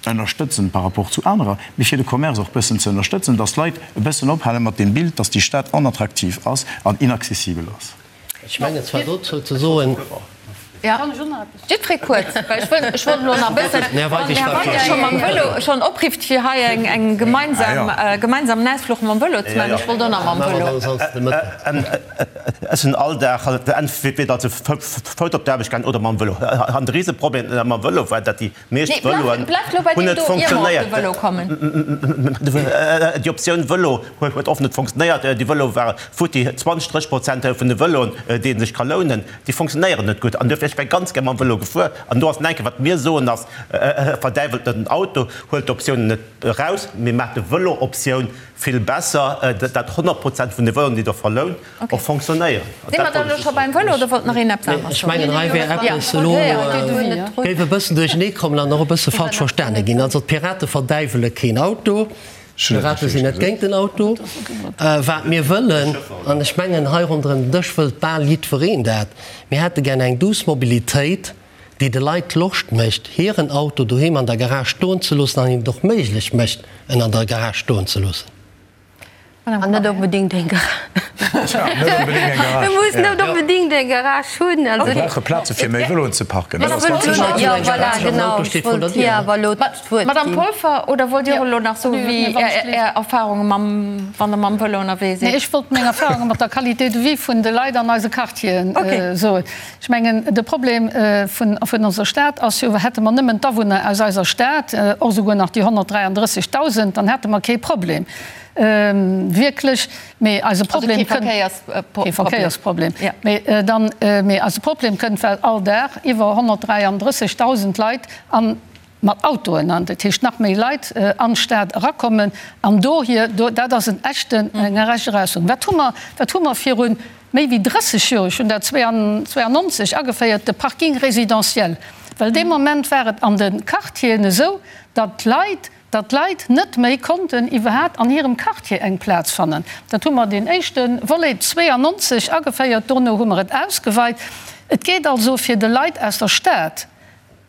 ënnerstëtzen par rapport zu anerer, mee fir de Commerce och bëssen ze ënnerstëtzen, dass d'Leit e bëssen ophale mat deem Bild, dass déi Stad onattraktiv ass an inaccessibel ass. Ech mengen zwar dozou ze soen. Jiddweree kuerz, well ech wëll, ech wollt elo nach e bëssen, wann den Här Weidig scho mam Vëlo schonn oprifft, fir hei eng, eng gemeinsam, gemeinsamen Ausfluch mam Vëlo ze maachen, ech wollt och nach mam Vëlo. Ech sinn all Dag entweder zu Fouss op d'Aarbecht gaangen oder mam Vëlo. An de Riseproblem mam Vëlo war, datt déi meescht Vëloen hunn net funktionéiert. Déi Optioun Vëlo huet oft net funktionéiert. Déi Vëloe ware futti. 20, 30 Prozent vun de Vëloen, déi ee sech ka lounen, déi funktionéieren net gutt. An duerfir, ech wär ganz gär mam Vëlo gefuer. An do ass enke wat mir soen ass, Verdäiwelt net den Auto, huelt d'Optiounen net eraus, mee maacht de Vëlo-Optioun vill besser, datt 100 Prozent vun de Vëloen, déi Der verlount, och fonctionnéieren. Si mer dann elo scho beim Vëlo oder wollt nach een eppes aneres Ech mengen, hei wär eppes elo, géif e bëssen duerchenee kommen an och e bësse falsch verstane ginn. Also d'Pirate verdäiwele keen Auto, d'Pirate sinn net géint den Auto. Wat mir wëllen, an ech mengen, hei ronderëm den Dësch wëllt bal jiddwereen dat, mir hätte gär eng douce Mobilitéit, déi de Leit Loscht mécht, hiren Auto doheem an der Garage stoen ze loossen an hinnen et och méiglech mécht, en an der Garage stoen ze loossen. An net onbedéngt eng Garage. E muss net onbedéngt eng Garage hunn. Mir brauche Plaze fir méi Vëloen ze parken. Dat ass ganz sécher. Jo, voilà, genau. Ech wollt hir awer elo d'Wuert ginn. Madame Polfer, oder wollt Dir och elo nach soen, wéi Är Erfahrunge mam, wann Der mam Vëlo ënnerwee sidd? Nee, ech wollt meng Erfahrunge mat der Qualité de vie vun de Leit an eise Quartieren soen. Ech mengen, de Problem vun onser Stad ass jo, hätte mer nëmmen d'Awunner aus eiser Stad, och esouguer nach déi 133.000, dann hätte mer kee Problem, wierklech. Mee eise Problem kënnt. Kee Verkéiersproblem. Mee dann, mee eise Problem kënnt, well all Dag iwwer 133.000 Leit an, mat Autoen, an dat heescht nach méi Leit an d'Stad erakommen an dohier, do, dat ass en echten, eng echt Erausfuerderung. Wat hu mer, wat hu mer viru méi wéi 30 Joer, ech hunn dat 92 ageféiert, de Parking résidentiel, well dee Moment war et an de Quartieren esou, datt d'Leit, datt d'Leit net méi konnten iwwerhat an hirem Quartier eng Plaz fannen. Dat hu mer deen éischte Volet 92 ageféiert, dono hu mer et ausgeweit. Et geet also fir de Leit aus der Stad,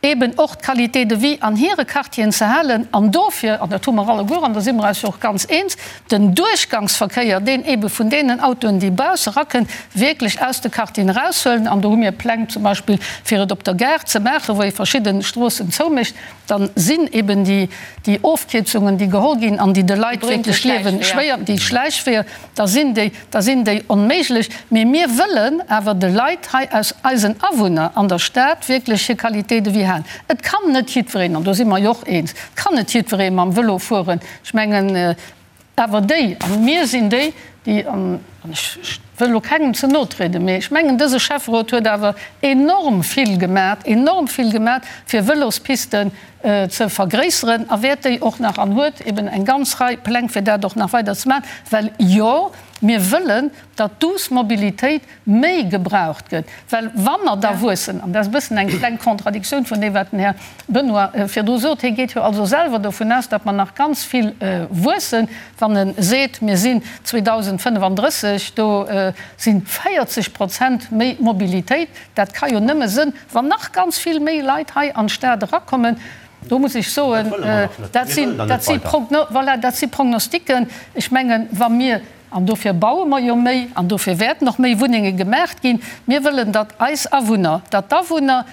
eben och d'Qualité de vie an hire Quartieren ze halen an dofir, an dat hu mer alleguer, an do si mer eis jo och ganz eens, den Duerchgangsverkéier, deen ebe vun deenen Autoen, déi bausse erakënn, wierklech aus de Quartieren eraushuelen. An do hu mir Pläng zum Beispill, fir et op der Gare ze maachen, wou ee verschidde Stroossen zoumécht, dann sinn eben déi, déi Ofkierzungen, déi geholl ginn an déi de Leit wierklech d'Liewe schwéier, déi Schläichweeër, da sinn déi, da sinn déi onméiglech. Mee mir wëllen awer de Leit hei aus eisen Awunner an der Stad wierklech hir Qualité de vie halen. Et kann net jiddwereen, an do si mer jo och eens, et kann net jiddweree mam Vëlo fueren. Ech mengen awer déi, a mir sinn déi, déi, an ech wëll elo kengem ze no trieden, mee ech mengen dëse Schäfferot huet awer enorm vill gemat, enorm vill gemat, fir Vëlospisten ze vergréisseren a wäert déi och nach an huet eben eng ganz Rei Pläng fir dat och nach weider ze maachen, well jo, mir wëllen, datt d'douce Mobilitéit méi gebraucht gëtt, well wa mer da wuessen, an dat ass e bëssen eng kleng Contradictioun vun deem wat den Här Benoy virdru sot, hie geet jo also selwer dovun aus, datt mer nach ganz vill wuessen, wann e seet, mir sinn 2035, do si 40 Prozent méi Mobilitéit, dat ka jo nëmme sënn Wann nach ganz vill méi Leit hei an d'Stad erakommen, do muss ech soen, dat sinn, dat si Progno, voilà, dat si Prognostiquen. Ech mengen, wa mir, an dofir baue mer jo méi an dofir wäerten och méi Wunnenge gemaacht ginn, mir wëllen, datt eis Awunner, datt d'Awunner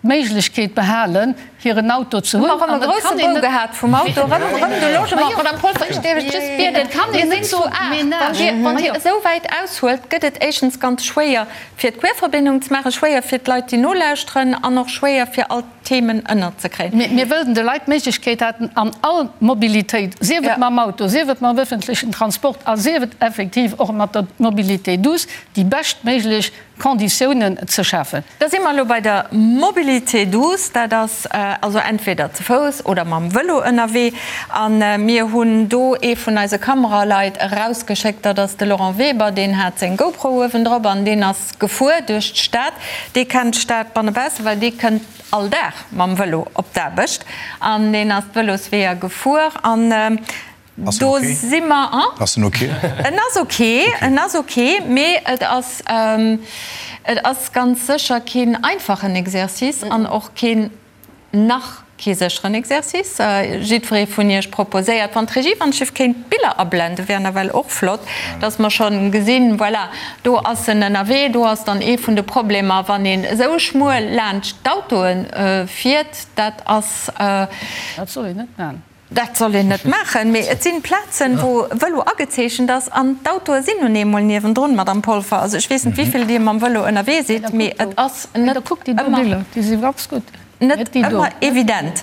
d'Méiglechkeet behalen, hiren Auto ze hunn. Hu mer erëm e grousse Bou gehat vum Auto, erëm, erëm de Logement. Madame Polfer, ech dierf lech just bieden, mir sinn zu 8, wann Dir, wann Dir esou wäit aushuelt, gëtt et éischtens ganz schwéier, fir d'Querverbindung ze maachen, schwéier fir d'Leit, déi nolauschteren, an och schwéier fir all d'Themen ënnerzekréien. Mir wëllen de Leit d'Méiglechkeet haten, an all Mobilitéit, sief et mam Auto, sief et mam öffentlechen Transport a sief et effektiv och mat der Mobilité douce, déi beschtméiglech Konditiounen ze schafen. Da si mer elo bei der Mobilité douce. Dat ass also entweder ze Fouss oder mam Vëlo ënnerwee. A mir hunn do ee vun eise Kameraleit erausgeschéckt, dat ass de Laurent Weber, deen hat seng GoPro uewendrop an deen ass gefuer duerch d'Stad. Dee kennt d'Stad bannebausse, well dee kënnt all Dag mam Vëlo op d'Aarbecht an deen ass d'Vëlosweeër gefuer an do si mer. Ass en ok? En ass ok, en ass ok, mee et ass, et ass ganz sécher keen einfachen Exercice an och keen Nach kee sécheren Exercice. Jiddweree vun Iech proposéiert, wann d'Regie wann ech kéint d'Biller ablenden, wär nawell och flott, dass mer schonn gesinn, voilà, do ass en ënnerwee. Do ass dann ee vun de Problemer, wann een esou schmuel laanscht d'Autoe fiert, dat ass. Dat soll een net maachen. Dat soll een net maachen, mee et sinn Plazen, wou Vëlo agezeechent ass an d'Autoe sinn nun eemol niewendrun, Madamm Polfer. Also ech weess net, wéivill Dir mam Vëlo ënnerwee sidd, mee et ass net ëmmer, net ëmmer evident.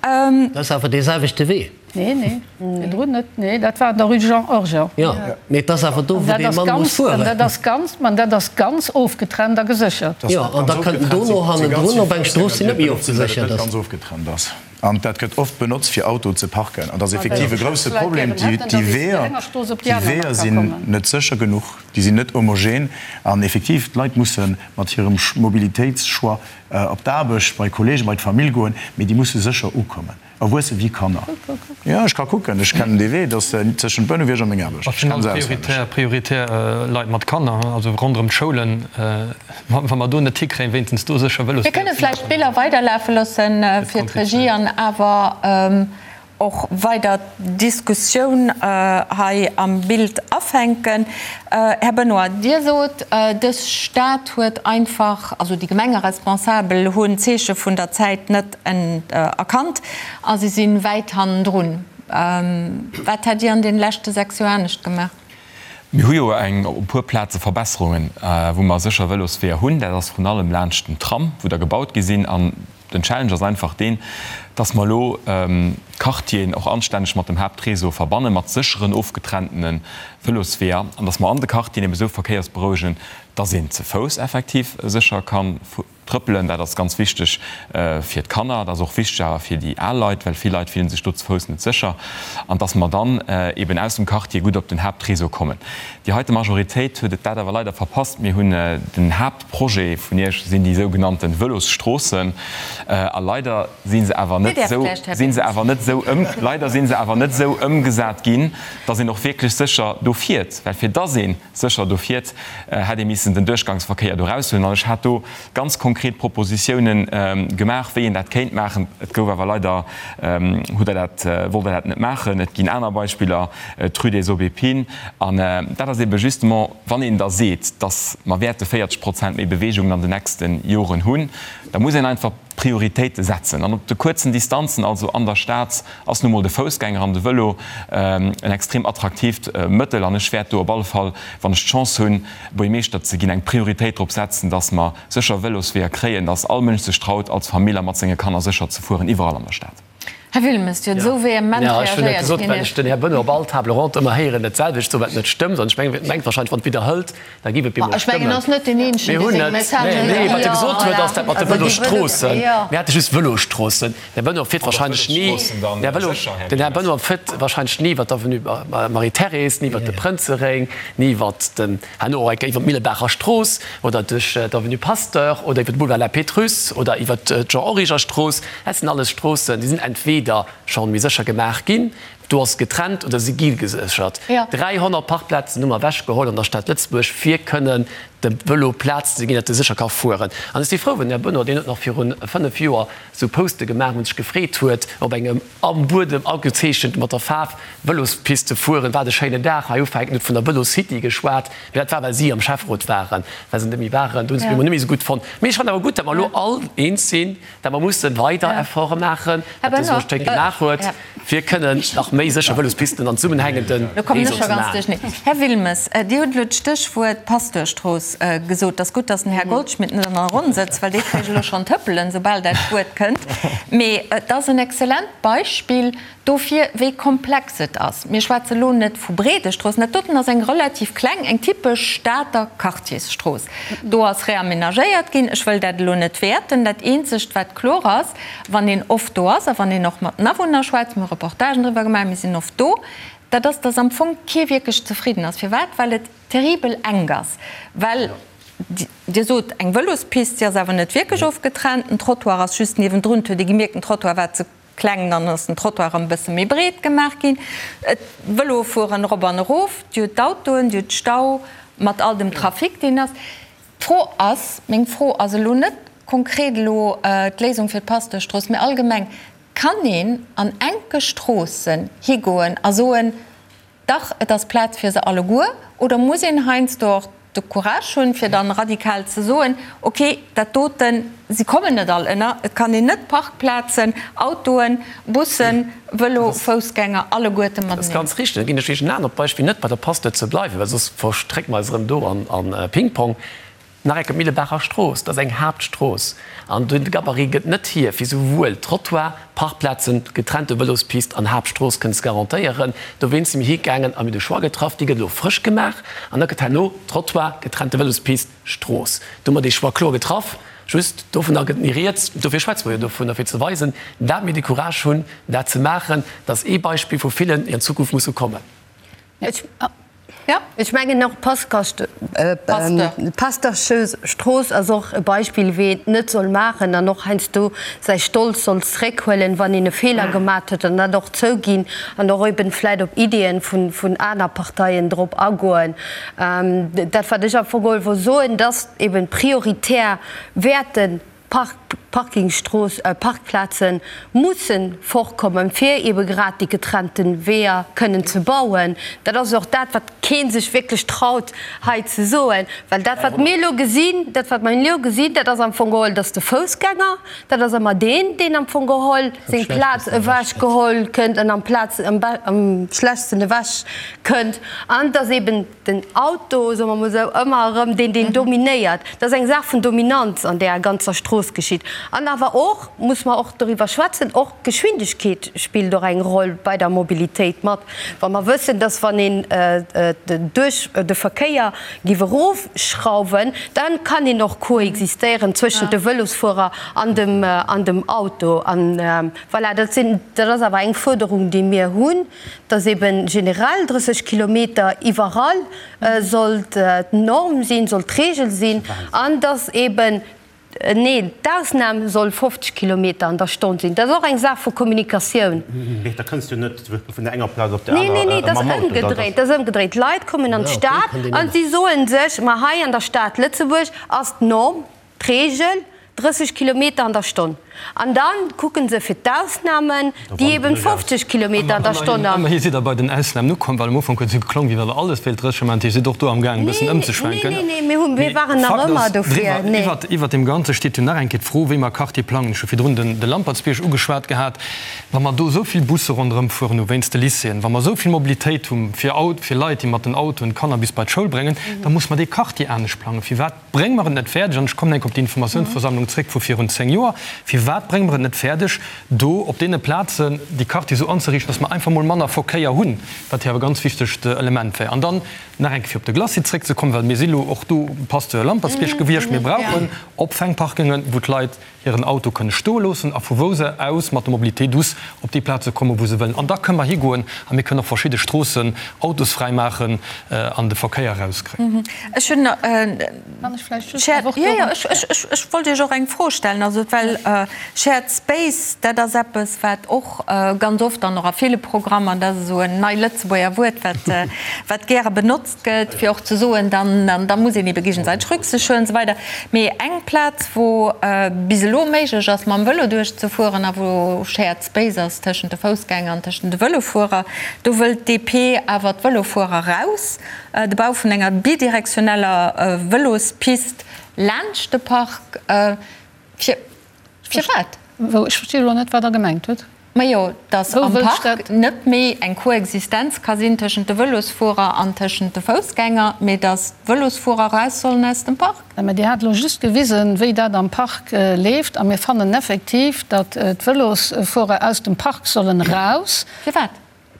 Dat ass awer dee selwechte Wee. Nee, nee, virdrun net. Nee, dat war an der Rue Jean Origer. Jo, mee et ass awer do, wou dee Mann muss fueren. An dat ass ganz, ma dat ass ganz ofgetrennt a geséchert. Jo, an da kënnt en dono hannendrun op eng Strooss, déi net méi ofgeséchert ass. An dat gëtt oft benotzt, fir Autoen ze parken. An dat ass effektiv e grousse Problem. Déi Weeër, déi Weeër sinn net sécher genuch, déi sinn net homogen. An effektiv, d'Leit musse mat hirem Mobilitéitschoix op d'Aarbecht, bei Kollegen, bei d'Famill goen, mee déi musse sécher ukommen. Erwuesse wéi Kanner. Jo, ech ka kucken, ech kennen dee Wee, dat ass tëschent Bouneweg a meng Aarbecht. Ech kenne se auswenneg. Prioritär Leit mat Kanner, also ronderëm d'Schoulen. Wa mer do net hikréien, wéinstens do sécher Vëlosweeër Mir kënne vläicht d'Biller weiderlafe loosse fir d'Regie an awer och weider d'Diskussioun hei am Bild afänken. Här Benoy, Dir sot, dës Stad huet einfach, also déi Gemengeresponsabel hunn d'Zeeche vun der Zäit net erkannt a si si wäit hannendrun. Wat hätt Dir an deene leschte 6 Joer anescht gemaach? Mir hu jo eng op e puer Plaze Verbesserungen, wou mer sécher Vëlosweeër hunn. Dat ass vrun allem laanscht den Tram, wou der gebaut gi sinn. An den Challenge ass einfach deen, dass mer elo d'Quartieren och anstänneg mat dem Haaptréseau verbanne mat sécheren, ofgetrenntene Vëlosweeër an dass mer an de Quartieren eben esou verkéiersberouegen, dass een ze Fouss effektiv sécher ka Trëppelen, dat ass ganz wichteg fir d'Kanner, dat ass och wichteg awer fir déi al Leit, well vill Leit fillen sech do ze Fouss net sécher, an dass mer dann eben aus dem Quartier gutt op den Haaptréseau kommen. Déi heite Majoritéit huet et dat awer leider verpasst. Mir hunn den Haaptprojet vun Iech sinn déi sougenannte Vëlosstroossen, a leider si se awer net esou, si se awer net esou ëm, leider si se awer net esou ëmgesat ginn, dass een och wierklech sécher do fiert, well fir dass een Sécher do fiert, hätt ee missen den Duerchgangsverkéier do eraushuelen. An ech hat do ganz konkret Propositiounen gemaach, wéi een dat kéint maachen. Et gouf awer leider, hutt Der dat, wollt Der dat net maachen. Et ginn aner Beispiller, d'Rue des Aubépines. An dat ass ebe justement, wann een da seet, datt mer wäerte 40 Prozent méi Beweegungen an den nächste Joren hunn, da muss een einfach Prioritéite setzen. An op de kuerzen Distanzen, also an der Stad, ass nu mol de Foussgänger an de Vëlo en extrem attraktiivt Mëttel. An ech wäert do op alle Fall, wann ech d'Chance hunn, Buergmeeschter ze ginn, eng Prioritéit drop setzen, dass mer sécher Vëlosweeër kréien, dass all Mënsch sech traut, als Famill a mat senge Kanner sécher ze fueren, iwwerall an der Stad. Här Wilmes, Dir hutt esou vehement reagéiert. Ech hunn net gesot, well ech den Här Benoy op all Table ronde ëmmer héieren, dat selwecht soen, wat net stëmmt. An ech mengen, mengt wahrscheinlech, wann et widderhëlt, da géif et bemol stëmmen. Ech mengen, en ass net deen Eenzegen, dee seng Messagen. Nee, wat e gesot huet, ass dat mat de Vëlosstroossen. Mir hate just Vëlosstroossen. Den Här Benoy fiert wahrscheinlech ni, den Här Benoy fiert wahrscheinlech ni iwwer d'Avenue Marie-Thérèse, ni iwwer de Prënzeréng, ni iwwer den, herno och eng Kéier iwwer d'Millebaacher Strooss oder duerch d'Avenue Pasteur oder iwwer de Boulevard La Pétrusse oder iwwer d'Jean-Origer-Strooss. Dat sinn alles Stroossen, déi sinn entweder scho méi sécher gemaach ginn, do ass getrennt, oder si gi geséchert. 300 Parkplazen hu mer ewechgeholl an der Stad Lëtzebuerg, fir kënnen dem Vëlo Plaz ze ginn, datt e sécher ka fueren. An ech si frou, well den Här Benoy, deen huet nach viru 5 Joer esou Poste gemaach, wou en sech gefreet huet, op engem am Buedem agezeechent mat der Faarf Vëlospiste fueren, wat e schéinen Dag. Hei ufänken, huet vun der Vëlocity geschwat, mee dat war, well si am Schäfferot waren, well se net méi waren. Do hunn se et bemol net méi esou gutt fonnt. Mee ech fannen awer gutt, datt mer elo all eens sinn, Dat mer musse weider Efforte maachen, wat de Soctec gemaach huet, fir kënnen nach méi sécher Vëlospisten an zesummenhängende Réseau ze maachen. Här Wilmes, Dir hutt elo d'Stéchwuert Pasteurstrooss gesot. Et ass gutt, datt den Här Goldschmidt net an der Ronn sëtzt, well dee kréich elo schonn d'Hëppelen, soubal dat Wuert kënnt. Mee et ass en exzellent Beispill dofir, wéi komplex et ass. Mir schwätze lo net vu breede Stroossen. Dat doten ass eng relativ kleng, eng typesch Stater Quartiersstrooss. Do ass reamenagéiert ginn. Ech wëll dat elo net wäerten. Dat eenzegt, wat kloer ass, wann een oft do ass a wann een och mat den Awunner schwätzt, mir hu Reportagen driwwer gemaach, mir sinn oft do, dat ass, dass am Fong kee wierklech zefridden ass. Firwat? Well et terribel enk ass. Well Dir sot, eng Vëlospist, si ass awer net wierklech ofgetrennt. Den Trottoir ass just niewendrun. Et huet ee gemierkt, den Trottoir war ze Kleng, dann ass den Trottoir erëm e bësse méi breet gemaach ginn. D'Vëloe fueren erop an erof, Dir hutt d'Autoen, Dir hutt Stau mat all dem Trafic, deen ass. D'Fro ass, meng Fro ass elo net konkret elo d'Léisung fir d'Pasteurstrooss, mee allgemeng, Kann een an enke Stroossen higoen a soen, dach, et ass Plaz fir se alleguer, oder muss een heiansdo och. de Courage hunn, fir dann radikal ze soen, okay, dat doten, si kommen net all ënner, et kann een net Parkplazen, Autoen, Bussen, Vëlo, Foussgänger alleguerte mateneen. Dat ass ganz richteg. Da ginn ech Iech en anert Beispill, net bei der Pasteur ze bleiwen, well soss verstrécke mer eis erëm do an Ping-Pong. Nach eng Kéier, d'Millebacher Strooss, dat ass eng Haaptstrooss an de Gabarit gëtt net hier, fir souwuel Trottoir, Parkplazen, getrennte Vëlospist an Haaptstrooss kënnen ze garantéieren. Dowéinst si mir higaangen a mir hu de Choix getraff, déi gëtt elo frësch gemaach an da gëtt herno Trottoir, getrennte Vëlospist, Strooss. Do hu mer dee Choix kloer getraff. Just dovunner gëtt ni rieds. Dofir schwätze mer jo dovunner, fir ze weisen, dat mir de Courage hunn, dat ze maachen. Dat ass ee Beispill vu villen, déi an Zukunft musse kommen. Ech mengen och d'Pasteurstrooss ass och e Beispill, wéi een et net soll maachen an och heiansdo säi Stolz soll zréckhuelen, wann een e Feeler gemat huet an dat och zouginn an och eben vläit op Ideeën vun aner Parteien drop agoen. Dat wat ech am Fong geholl wollt soen, dass eben prioritär wäerten Parkingstrooss, Parkplaze musse fortkommen, fir ebe grad déi getrennte Weeër kënnen ze bauen. Dat ass och dat, wat kee sech wierklech traut hei ze soen, well dat, wat mir elo gesinn, dat, wat mir elo gesinn, dat ass am Fong geholl, dass de Foussgänger, dat ass ëmmer deen, deen am Fong geholl seng Plaz ewechgeholl kënnt an amplaz am schlechtsten ewechkënnt, an dass eben den Auto, soe mer mol esou, ëmmer erëm deen, deen dominéiert. Dat ass eng Saach vun Dominanz an där ganzer Strooss geschitt. An awer och, muss mer och doriwwer schwätzen, och d'Geschwindegkeet spillt och eng Roll bei der Mobilitéit mat. Wa mer wëssen, dass wann een duerch de Verkéier giff erofschrauwen, da kann een och koexistéieren zwëschent de Vëlosfuerer an dem, an dem Auto. An voilà, dat sinn, dat ass awer eng Fuerderung, déi mir hunn. dass eben generell 30 Kilometer iwwerall sollt d'Norm sinn, sollt d'Regel sinn, an dass eben, nee, d'Ausnam soll 50 Kilometer an der Stonn sinn. Dat ass och eng Saach vu Kommunikatioun. Mee da kënns du net vun der enger Plaz op déi aner mam Auto. Nee, nee, nee, dat ass ëmgedréit, dat ass ëmgedréit. D'Leit kommen an d'Stad a si soe sech, ma hei an der Stad Lëtzebuerg ass d'Norm, D'Reegel, 30 Kilometer an der Stonn. An da kucke se fir d'Ausnamen, déi eben 50 Kilometer an der Stonn an. Ëmmerhi sidd Der bei den Ausnamen ukomm, well am Ufank huet et esou geklongen, wéi wa Der alles wéilt 30 maachen. Dir sidd och do amgaangen e bëssen ëmzeschwenken. Nee, nee, nee, mir waren nach ëmmer dofir. Nee. Iwwert deem Ganze steet jo nach eng Kéier d'Fro, wéi mer Quartier plangen. Ech hu virdrun de Lampertsbierg ugeschwat gehat. Wa mer do esou vill Busse ronderëm fueren hu wéinst de Lycéeën, wa mer esou vill Mobilitéit hu fir Leit, déi mat den Autoen d'Kanner bis bei d'Schoul bréngen, da muss mer dee Quartier anescht plangen. Firwat Brénge mer et net fäerdeg, an ech kommen enk op déi Informatiounsversammlung zréck vu virun 10 Joer, firwat brénge mer et net fäerdeg, do op deene Plazen déi Quartiere esou anzeriichten, dass mer einfach mol manner Verkéier hunn, wat jo awer e ganz wichtegt Element wär. An dann nach eng Kéier fir op de Glacis zréckzekommen, well mir si lo och do Pasteur Lampertsbierg gewiescht, mir brauchen Opfängparkingen, wou d'Leit hiren Auto kënne stoe loossen a vu wou se aus mat der Mobilité douce op déi Plaze kommen, wou se wëllen. An da kënne mer higoen a mir kënnen och verschidde Stroossen autosfräi maachen an de Verkéier erauskréien. Ech hunn, jo, jo, ech wollt Iech och eng Fro stellen, also well Shared Space, dat ass eppes, wat och ganz oft an och a ville Programmer, dat ass esou en nei Lëtzebuerger Wuert, wat, wat gäre benotzt gëtt, fir och ze soen, dann da muss een ebe géigesäiteg Rücksicht huelen an esou weider. Mee eng Plaz, wou bis elo méiglech ass, mam Vëlo duerchzefueren a wou Shared Space ass tëschent de Foussgänger an tëschent de Vëlofuerer, do wëllt d'DP awer d'Vëlofuerer raus. De Bau vun enger bidirektioneller Vëlospist laanscht de Park. Fir Firwat? Wou? Ech versti elo net, wat Der gemengt hutt. Majo, datt am Park net méi eng Koexistenz ka sinn tëschent de Vëlosfuerer an tëschent de Foussgänger, mee datt d'Vëlosfuerer eraus sollen aus dem Park. Mä Dir hat elo just gewisen, wéi dat am Park leeft. A mir fannen effektiv, datt d'Vëlosfuerer aus dem Park sollen eraus. Firwat?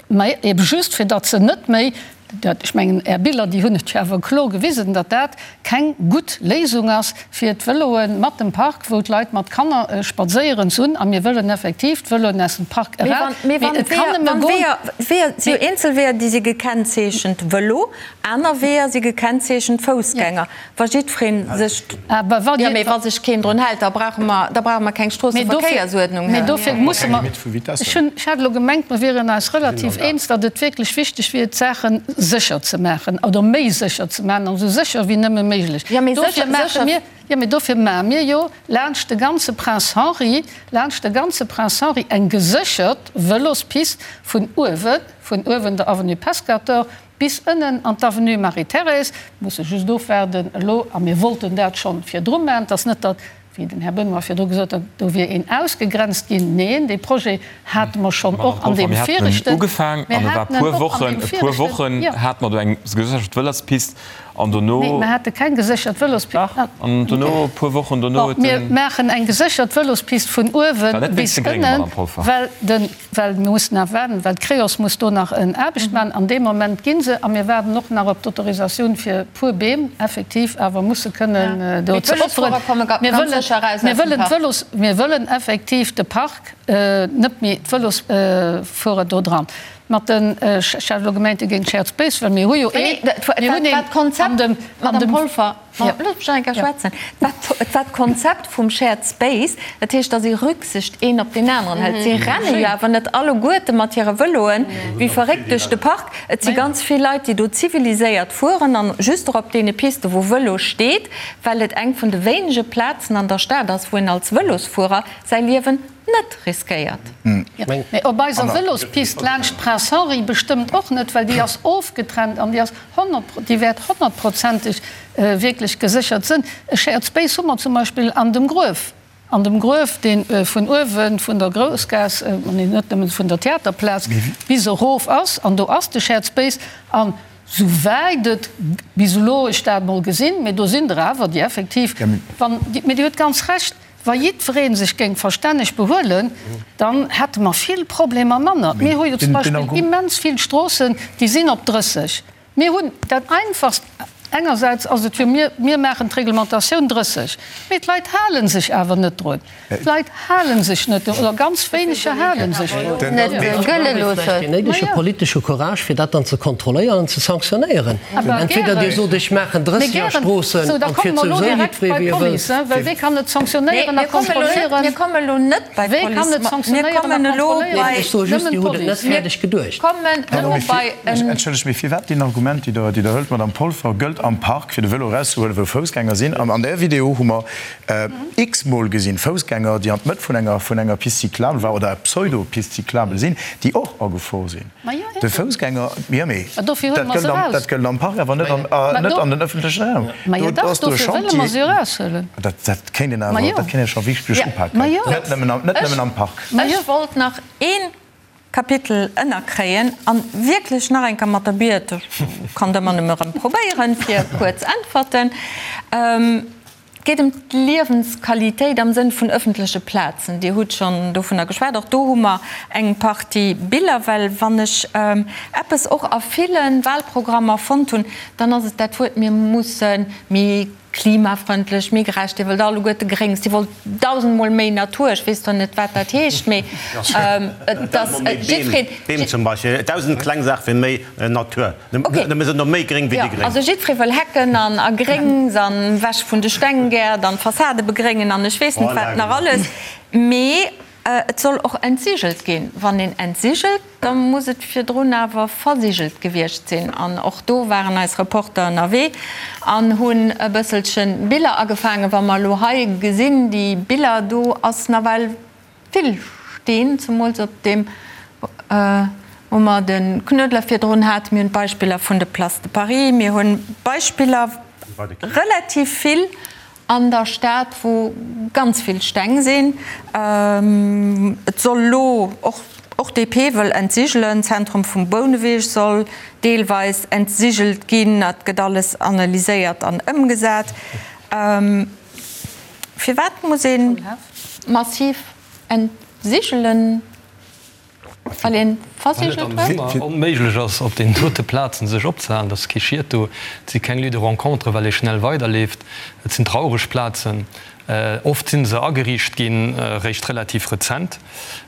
Mä ebe just, fir datt se net méi, dat, ech mengen, Är Biller, déi hunn et jo awer kloer gewisen, datt dat keng gutt Léisung ass, fir d'Vëloe mat dem Park, wou d'Leit mat Kanner spadséieren, ze hunn. A mir wëllen effektiv d'Vëloen aus dem Park eraus. Mee wann d'Weeër, Weeër, si jo eenzel Weeër, déi si gekennzeechent Vëlo, aner Weeër si gekennzeechent Foussgänger. Wa jiddweree sech, jo, mee wa sech keen drun hält, da brauche mer, da brauche mer keng Stroosseverkéiersuerdnung. Mee dofir musse mer, ech hunn, ech hat elo gemengt, mer wieren eis relativ eens, datt et wierklech wichteg wier, d'Saache sécher ze maachen oder méi sécher ze maachen, an esou sécher wéi nëmme méiglech. Dofir maache mir, jo, mee dofir maache mir jo laanscht de ganze Prince Henri, laanscht de ganze Prince Henri eng geséchert Vëlospist vun uewen, vun uewen der Avenue Pescator. bis ënnen an d'Avenue Marie-Thérèse. Mir musse just ofwaarden elo, a mir wollten dat schonn virdru maachen, et ass net, datt, wéi den Här Benoy virdru gesot huet, do wier een ausgegrenzt ginn. Neen, dee Projet hate mer schonn och an deem viregten. Mir haten en och an deem viregten, jo. An dono. Nee, mer hate keng geséchert Vëlospist. Dach, an dono, e puer Wochen dono huet den. Mir maachen eng geséchert Vëlospist vun uewe bis ënnen, well de, well mir mussen nach waarden, well d'Creos muss do nach en Aarbecht maachen. An deem Moment gi se, a mir waarden och nach op d'Autorisatioun fir e puer Beem effektiv awer musse kënnen do ze opferen. Mir wëllen, mir wëllen d'Vëlos, mir wëllen effektiv de Park, net méi d'Vëlosfuerer do dran. Mat den, ech hat elo gemengt, Dir géingt Shared Space, well mir hu jo een, mir hunn een an dem, an dem. Madame Polfer, loosst mech nach eng Kéier schwätzen. Et war d'Konzept vum Shared Space, dat heescht, datt ee Rücksicht een op deen aneren hëlt. Si renne jo awer net alleguerte mat hire Vëloen wéi verréckt duerch de Park. Et si ganz vill Leit, déi do ziviliséiert fueren an just och op deene Piste wou Vëlo steet, well et eng vun de wéinege Plazen an der Stad ass, wou een als Vëlosfuerer säi Liewen net riskéiert. Mee op eiser Vëlospist laanscht Prince Henri bestëmmt och net, well déi ass ofgetrennt an déi ass déi wäert honnertprozenteg wierklech geséchert sënn. E Shared Space hu mer zum Beispill an dem Gruef, an dem Gruef, dee vun uewe vun der Groussgaass, nee net nëmmen vun der Theaterplaz bis erof ass, an do ass de Shared Space. An souwäit et bis elo ech dat emol gesinn, mee do sinn der awer, déi effektiv, wann, mee Dir hutt ganz Recht, Wa jiddweree sech géing verstänneg behuelen, dann hätte mer vill Problemer manner. Mir hu jo zum Beispill immens vill Stroossen, déi sinn op 30. Mir hunn dat Einfachst, engersäits ass et jo, mir, mir maachen d'Reglementatioun 30, mee d'Leit hale sech awer net drun. D'Leit hale sech net drun, oder ganz wéineger hale sech drun. Net gëlle loossen. Deen néidege politesche Courage, fir dat dann ze kontrolléieren an ze sanktionéieren. Entweder Dir sot, ech maachen 30 a Stroossen an et fiert souwisou jiddweree wéi e wëllt. Wee kann et sanktionéieren a kontrolléieren? Mir kommen elo net bei d'Police. Mir kommen elo bei. Ech soe just, Dir hutt et net fäerdeg geduecht. Entschëllegt, mee firwat deen Argument, déi Der hëlt, Madamm Polfer, gëllt am Park, fir de Vëlo erauszehuelen, wou Foussgänger sinn? An där Video hu mer x-mol gesinn, Foussgänger, déi an d'Mëtt vun enger Piste cyclable war oder Pseudo-Piste cyclable sinn, déi och agefor sinn. De Foussgänger, jo mee dat gëllt am Park, awer net an den ëffentlechen Raum. Do ass do e Chantier, dat kéint een awer, dat kéint ee scho wierklech upaken, net nëmmen am Park. Ech wollt nach ee Kapitel ënnerkréien an wierklech nach eng Kéier mat der Biet, ech kann et ëmmer nëmme erëm probéieren, fir kuerz Äntwerten. Et geet ëm d'Liewensqualitéit am Sënn vun ëffentleche Plazen. Dir hutt schonn dovunner geschwat. Och do hu mer eng Partie Biller. Well wann ech eppes och a ville Wahlprogrammer fonnt hunn, dann ass et dat Wuert, mir musse méi klimafrëndlech, méi gerecht. Dir wëllt alleguerte Gréngs, Dir wollt dausendmol méi Natur. Ech weess zwar net, wat dat heescht, mee et ass jiddwereen. Beem zum Beispill, dausend kleng Saache fir méi Natur. Mir sinn no méi gréng wéi déi Gréng. Also jiddweree wëll Hecken an a Gréngs an ewech vun de Stenggäert an d'Fassade begréngen an ech weess net wat nach alles. Mee et soll och entsigelt ginn. Wann een entsigelt, da muss et virdrun awer versigelt gewiescht sinn. An och do waren eis Reporter ënnerwee an hunn e bësselche Biller agefaangen. Wa mer elo hei gesinn, déi Biller, do ass nawell Vill Steen, zemools op deem, wou mer de Knuedler virdrun haten. Mir hunn d'Beispiller vun de Place de Paris, mir hu Beispiller relativ vill an der Stad, wou ganz vill Steng sinn. Et soll elo och, och DP wëll entsigelen, d'Zentrum vum Bouneweg soll deelweis entsigelt ginn. Dat gëtt alles analyséiert an ëmgesat. Firwat muss ee massiv entsigelen, well ee versigelt huet? Well et am Summer onméiglech ass, op deenen dote Plazen sech opzehalen. Et ass kee Schiet do, et si keng Lieux de rencontre, well ee schnell weiderleeft. Et sinn traureg Plazen. Oft si se ageriicht ginn, réischt relativ rezent.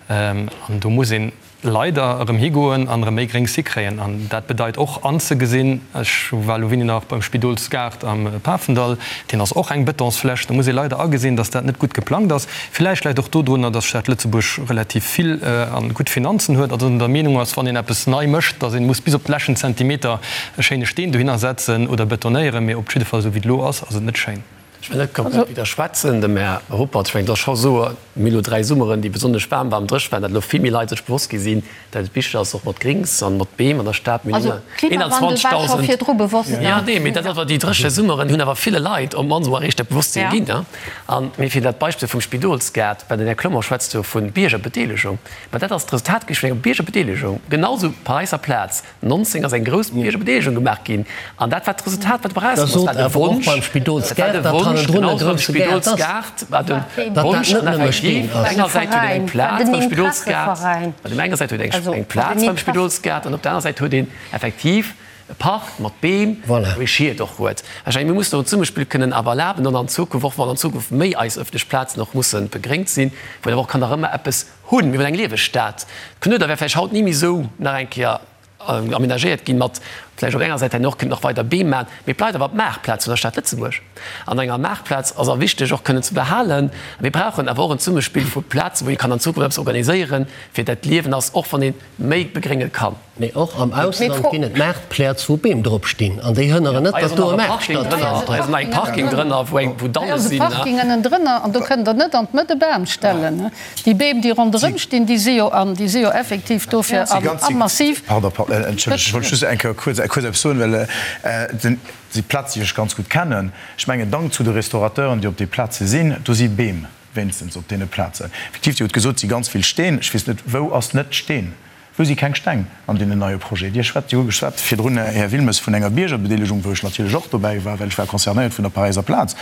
An do muss een leider erëm higoen an erëm méi Gréngs hikréien. An dat bedeit och anzegesinn, ech war elo wéini nach beim Spidolsgaart am Pafendall, deen ass och eng Betonsfläch, do muss ee leider agesinn, datt dat net gutt geplangt ass. Villäicht läit och dodrunner, datt d'Stad Lëtzebuerg relativ vill a gutt Finanzen huet a datt een der Meenung ass, wann een eppes nei mécht, datt ee muss bis op de leschten Zentimeter e schéine Steen dohinner setzen oder betonéieren. Mee op jidde Fall, esou wéi et elo ass, ass et net schéin. Ech wëll net komplett widderschwätzen dem Här Ruppert. Ech mengen, et ass scho esou, mir hu elo 3 Summeren, déi besonnesch waarm waren, dréch waren, datt elo vill méi Leit sech bewosst gi sinn, datt et wichteg ass, och mat Grings an mat Beem an der Stad. Mir hunn Also Klimawandel war scho 21.000. virdru bewosst, ne? Jo, nee, mee dat ass awer déi dréche Summeren hunn awer ville Leit op d'mannst emol eréischt dat Bewosstsinn ginn. An mee fir dat Beispill vum Spidolsgaart, well den Här Clement schwätzt jo vu Biergerbedeelegung, mä dat ass d'Resultat gewiescht vun enger Biergerbedeelegung, genau esou Paräisser Plaz. 19 ass eng grouss Biergerbedeelegung gemaach ginn an dat war d'Resultat, wat dobäi erauskomm ass, war de Wonsch, dat war de Wonsch, genau beim Spidolsgaart war de Wonsch an effektiv op enger Säit huet een eng Plaz beim Spidolsgaart, op der enger Säit huet een eng Plaz beim Spidolsgaart an op der aner Säit huet een effektiv e Park mat Beem, wou ee Schied och huet. Ech mengen, mir mussen och en Zesummespill kënnen awer erlaben an an Zukunft, och wann an Zukunft méi eis ëffentlech Plazen och musse begréngt sinn, wou een awer och kann nach ëmmer eppes Hunn. Mir hunn eng lieweg Stad. D'Knueder wär vläicht haut ni méi esou nach eng Kéier amenagéiert ginn, mat vläicht op enger Säit herno och kënnt nach weider Beem maachen, mee et bleift awer d'Maartplaz vun der Stad Lëtzebuerg. An enger Maartplaz ass a wichteg och kënnen ze behalen. Mir brauchen awer och en Zesummespill vu Plazen, wou ee kann an Zukunft eppes organiséieren, fir dat d'Liewen ass, och wann ee méi begrénge kann. Mee och am Ausland ginn et Maartpläz, wou Beem drop stinn, an déi hënneren net, datt do e Maart stattfënnt. Hei ass nach eng Parking drënner, wou Dalle sinn. Hei ass e Parking ënnendrënner, an do kënnt Der net an d'Mëtt e Bam stellen. Déi Beem, déi ronderëm stinn, déi si jo an, déi si jo effektiv dofir a massiv. Pardon, entschëllegt, ech wollt just eng Kéier kuerz eppes soen, well déi Plaz, déi ech ganz gutt kennen, ech mengen, Dank zu de Restaurateuren, déi op déi Plaze sinn, do si Beem wéinstens op deene Plazen. Effektiv, Dir hutt gesot, et si ganz vill Steen. Ech weess net, wou ass net Steen? Wou si keng Steng an deenen neie Projet? Dir schwätzt, Dir hutt geschwat virdrun, Här Wilmes, vun enger Biergerbedeelegung, wou ech natierlech och dobäi war, well ech war concernéiert vun der Paräiser Plaz.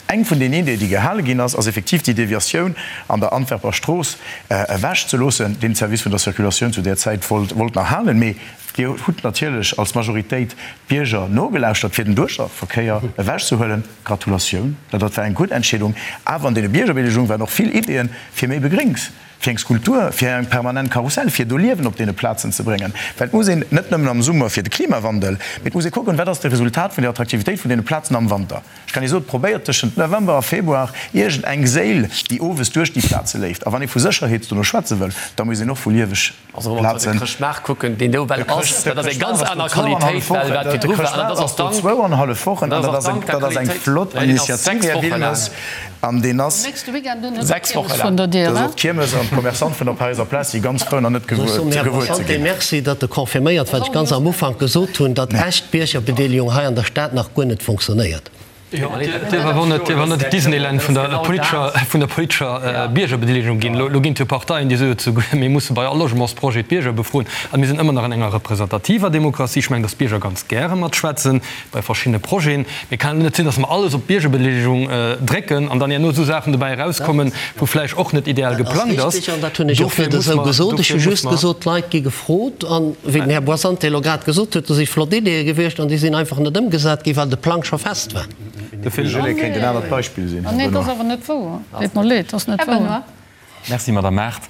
Eng vun den Ideeë, déi gehale ginn ass, ass effektiv déi Deviatioun an der Antwerper Strooss ewechzeloossen, deen d'Service vun der Circulatioun zu där Zäit wollt wollt nach halen. Mee Dir hutt natierlech als Majoritéit d'Bierger nogelauschtert, fir den Duerchverkéier ewechzehuelen. Gratulatioun, dat war eng gutt Entscheedung. Awer an deene Biergerbedeelegung waren och vill Ideeën fir méi Begréngs. Fir eng Skulptur, fir eng permanent Karussell, fir do Liewen op deene Plazen ze bréngen. Well et muss een net nëmmen am Summer fir de Klimawandel, mee et muss ee kucken, wat ass de Resultat vun der Attraktivitéit vun deene Plazen am Wanter. Ech kann Iech soen, probéiert tëschent November a Februar iergend eng Séil, déi owes duerch déi Plaze léift. A wann ee vu Sécherheet dono schwätze wëll, da muss een och vu lieweg Also wa mer op de Chrëschtmaart kucken, deen do well ass, dat ass eng ganz aner Qualitéit well wat virdru war. An dat ass och dank. Zwouanhallef Wochen, an dat ass eng, dat ass eng flott Initiativ, Här Wilmes, an deen ass. Nächste Weekend hunn se d'Kiermes vun der Dier, Dat ass och d'Kiermes an d'Commerçante vun der Paräiser Plaz si ganz frou, nach net gewuer ze ginn. Merci, datt Der confirméiert, wat ech ganz am Ufank gesot hunn, datt echt Biergerbedeelegung hei an der Stad nach guer net funktionéiert. Jo, et dierf awer net, dierf awer net d'Disneyland vun der politescher, vun der politescher Biergerbedeelegung ginn. Elo ginn et jo Parteien, déi soe souguer, mir musse bei all Logementsprojet d'Bierger befroen. A mir sinn ëmmer nach an enger representativer Demokratie. Ech mengen, datt d'Bierger ganz gäre matschwätzen bei verschiddene Projeten. Mee et kann net sinn, datt mer alles op d'Biergerbedeelegung drécken an dann herno esou Saachen dobäi erauskommen, wou vläicht och net ideal Dat ass geplangt ass. richtig an dat hunn ech och Dofir net muss esou mer, gesot. Ech hu dofir muss just mer. gesot, d'Leit gi gefrot. An wéi den Här Boissante elo grad gesot huet, do si flott Ideeë gewiescht an déi sinn einfach net ëmgesat ginn, well de Plang scho fest war. De Phil Gillet kéint en anert Beispill sinn, Här Nee, dat ass Benoy. awer net wouer. Deet mer leed, dat ass net Här wouer. Benoy. Merci, Madame Mart.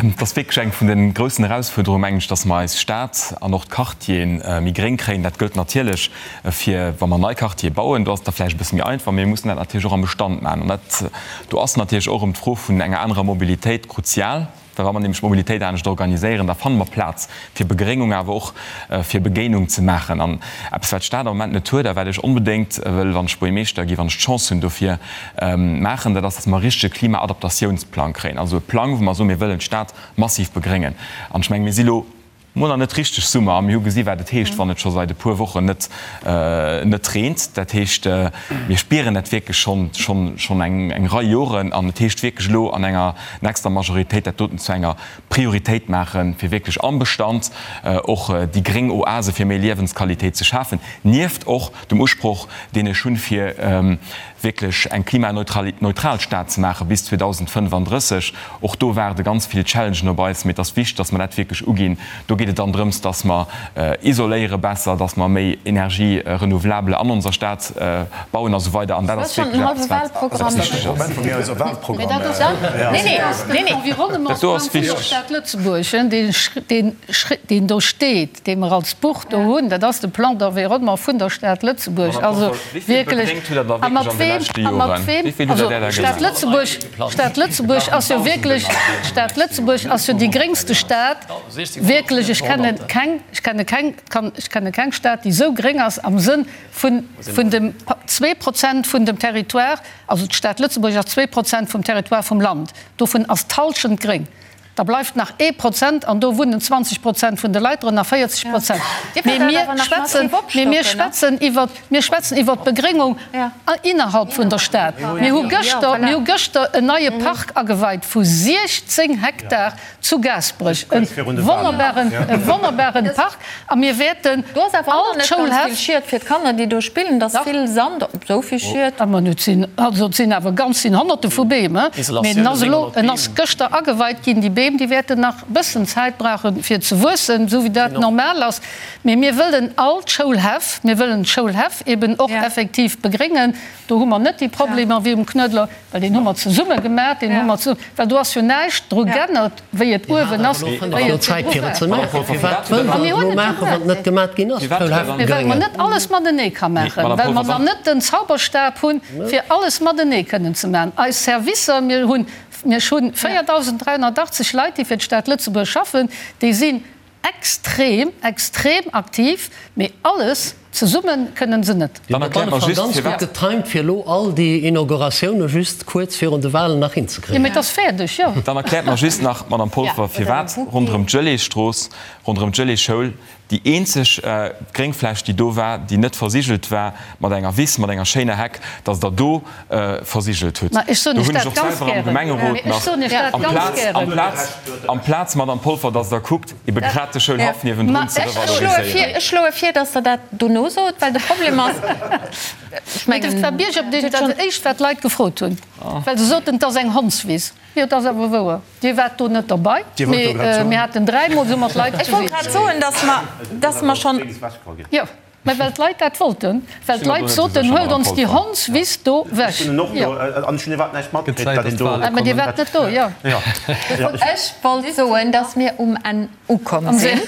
Et ass wierklech eng vun de groussen Erausfuerderungen, mengen ech, dass mer eis Stad an och d'Quartiere méi gréng kréien. Dat gëllt natierlech fir, wa mer nei Quartiere bauen, do ass et da vläicht e bësse méi einfach, mee mir mussen dat natierlech och am Bestand maachen. An dat, do ass natierlech och erëm d'Fro vun enger anerer Mobilitéit kruzial. Well wa mer nämlech d'Mobilitéit anescht organiséieren, da fanne mer Plaz fir Begréngung, awer och fir Begéinung ze maachen. An eppes, wat d'Stad am Moment net huet a wat ech onbedéngt wëll, wann ech Buergermeeschter ginn, wann ech d'Chance hunn dofir, maachen, dat ass, datt mer e richtege Klimaadaptatiounsplang kréien. Also e Plang, wou mer soen, mir wëllen d'Stad massiv begréngen. An ech mengen, mir si lo mol nach net richteg Summer a mir hu gesi wat et heescht, wann et scho seit e puer Wochen net net reent. Dat heescht, mir spieren dat wierklech schonn schonn schonn eng eng Rei Joren an et heescht wierklech elo an enger nächster Majoritéit dat doten zu enger Prioritéit maachen, fir wierklech am Bestand och déi gréng Oase fir méi Liewensqualitéit ze schafen, nieft och dem Usproch deen ech hunn, fir wierklech eng klimaneutral Stad ze maache bis 2035. Och do waarde ganz vill Challengen op eis, mee et ass wichteg, dass mer dat wierklech uginn. Do geet et dann drëms, dass mer isoléiere besser, dass mer méi Energie renouvelable an onser Stad bauen a sou weider. An dat ass wierklech eppes, wat wichteg ass. Dat do ass wichteg. Deen do steet. dee mer als Buch do hunn, dat ass de Plan d'environnement vun der Stad Lëtzebuerg. Also wierklech, a mat weem, a mat weem, also d'Stad Lëtzebuerg, d'Stad Lëtzebuerg ass jo wierklech, d'Stad Lëtzebuerg ass jo déi gréngste Stad, wierklech. ech kenne keng, ech kenne keng, kann, ech kenne keng Stad, déi esou gréng ass am Sënn vun, vun dem 2% vun dem Territoire, also d'Stad Lëtzebuerg ass 2% vum Territoire vum Land, dovun ass d'Hallschent gréng. Da bleift nach ee Prozent an do wunnen 20 Prozent vun de Leit drënner, 40 Prozent. Mee mir schwätzen, mee mir schwätzen iwwer, mir schwätzen iwwer d'Begréngung innerhalb vun der Stad. Mir hu gëschter, mir hu gëschter en neie Park ageweit vu 16 Hektar zu Gaasperech, e wonnerbaren, e wonnerbaren Park. A mir wäerten Do ass awer och nach net ganz vill Schied fir d'Kanner, déi do spillen. Et ass vill Sand, esou vill Schied. Ma et sinn, also et sinn awer ganz, sinn Honnerte vu Beem, mee en ass elo, en ass gëschter ageweit ginn. Déi Beem, déi wäerten nach e bëssen Zäit brauchen, fir ze wuessen, esou wéi dat normal ass. Mee mir wëllen all d'Schoulhäff, mir wëllen d'Schoulhäff eben och effektiv begréngen. Do hu mer net déi Problemer wéi um Knuedler, well deen hu mer zesumme gemaach, deen hu mer zesumme, well do ass jo näischt dru g'ännert, wéi et uewen ass, wéi et virdru war. A mir hunn et jo gemaach. Mee well mer net alles matenee ka maachen, well mer nach net den Zauberstab hunn, fir alles matenee kënnen ze maachen. Eis Servicer, mir hunn, mir hunn 4.380 Leit, déi fir d'Stad Lëtzebuerg schaffen, déi sinn Extrem, extrem aktiv, mee alles zesummen kënnen se net. Dann erkläert mer just, firwat. Ganz gutt getimed, fir elo all déi Inauguratioune just kuerz virun de Walen nach hinzekréien. Jo, mee et ass fäerdeg, jo. Dann erkläert mer just nach, Madame Polfer, firwat ronderëm d'Gelésstrooss, ronderëm d'Geléschoul déi eenzeg Gréngfläch, déi do war, déi net versigelt war mat enger Wiss, mat enger schéiner Heck, dass Der do versigelt hutt. Ma ech soen Iech dat ganz gären. Mee ech soen Iech dat ganz gären. Amplaz, Madame Polfer, dass Der kuckt, ebe grad de Schoulhaff niewendrun ze revaloriséieren. Ech schloe vir, dass Der dat dono sot, well de Problem ass, ech mengen. Dat war Biergerbedeelegung, dat éischt, wat d'Leit gefrot hunn, well se soten, et ass eng Hondswiss. Jo, et ass awer wouer. Dir waart do net derbei, mee mir haten dräimol esou mat Leit. Ech wollt grad soen, dass mer, dass mer schonn. Jo, mä well d'Leit dat wollten, well d'Leit soten, Huelt ons déi Hondswiss do wech. Jo. Mä Dir waart net do, jo. Ech wollt soen, dass mir um Enn ukomm sinn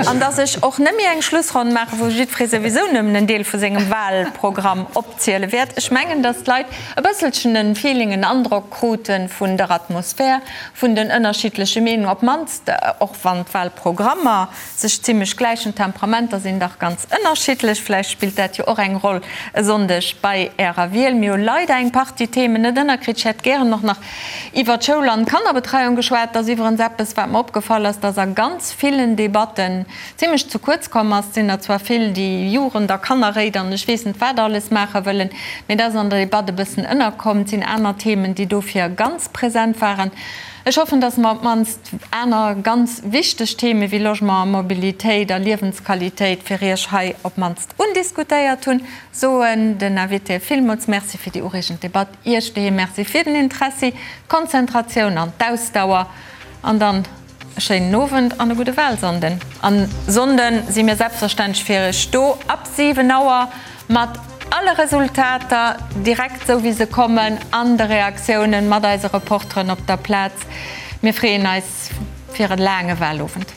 an dass ech och net méi eng Schlussronn maachen, wou jiddweree souwisou nëmmen en Deel vu sengem Wahlprogramm opziele wäert. Ech mengen, dass d'Leit e bësselchen en Feeling, en Androck krute vun der Atmosphär, vun den ënnerschiddleche Meenungen, op d'mannst och wann d'Wahlprogrammer sech zimlech gläichen. D'Temperamenter sinn dach ganz ënnerschiddlech. Vläicht spillt dat jo och eng Roll e Sonndeg bei Ärer Wiel. Mir hu leider eng Partie Themen net ënnerkritt. Ech hätt gären och nach Iwwer d'Schoul an d'Kannerbetreiung geschwat. Dat ass iwwerens eppes, wat mer opgefall ass, dass a ganz villen Debatten zimlech ze kuerz komm ass. Et sinn der zwar vill, déi Jugend a Kannerréit an ech weess net wat alles maache wëllen, mee dat ass an der Debatt e bëssen ënnerkomm. Et sinn aner Themen, déi dofir ganz present waren. Ech hoffen, dass mer op d'mannst aner ganz wichteg Theme wéi Logement a Mobilitéit a Liewensqualitéit fir Iech hei op d'mannst undiskutéiert hunn. Soen den Invitéë villmools Merci fir déi ureegend Debatt. Iech doheem Merci fir den Interessi, d'Konzentratioun an d'Ausdauer. An dann e schéinen Owend an e gudde Wahlsonnden. An Sonnde si mir selbstverständlech fir iech do ab 7 Auer mat alle Resultater, direkt esou wéi se kommen, an de Reaktiounen mat eise Reporteren op der Plaz. Mir freeën eis fir e laange Wahlowend.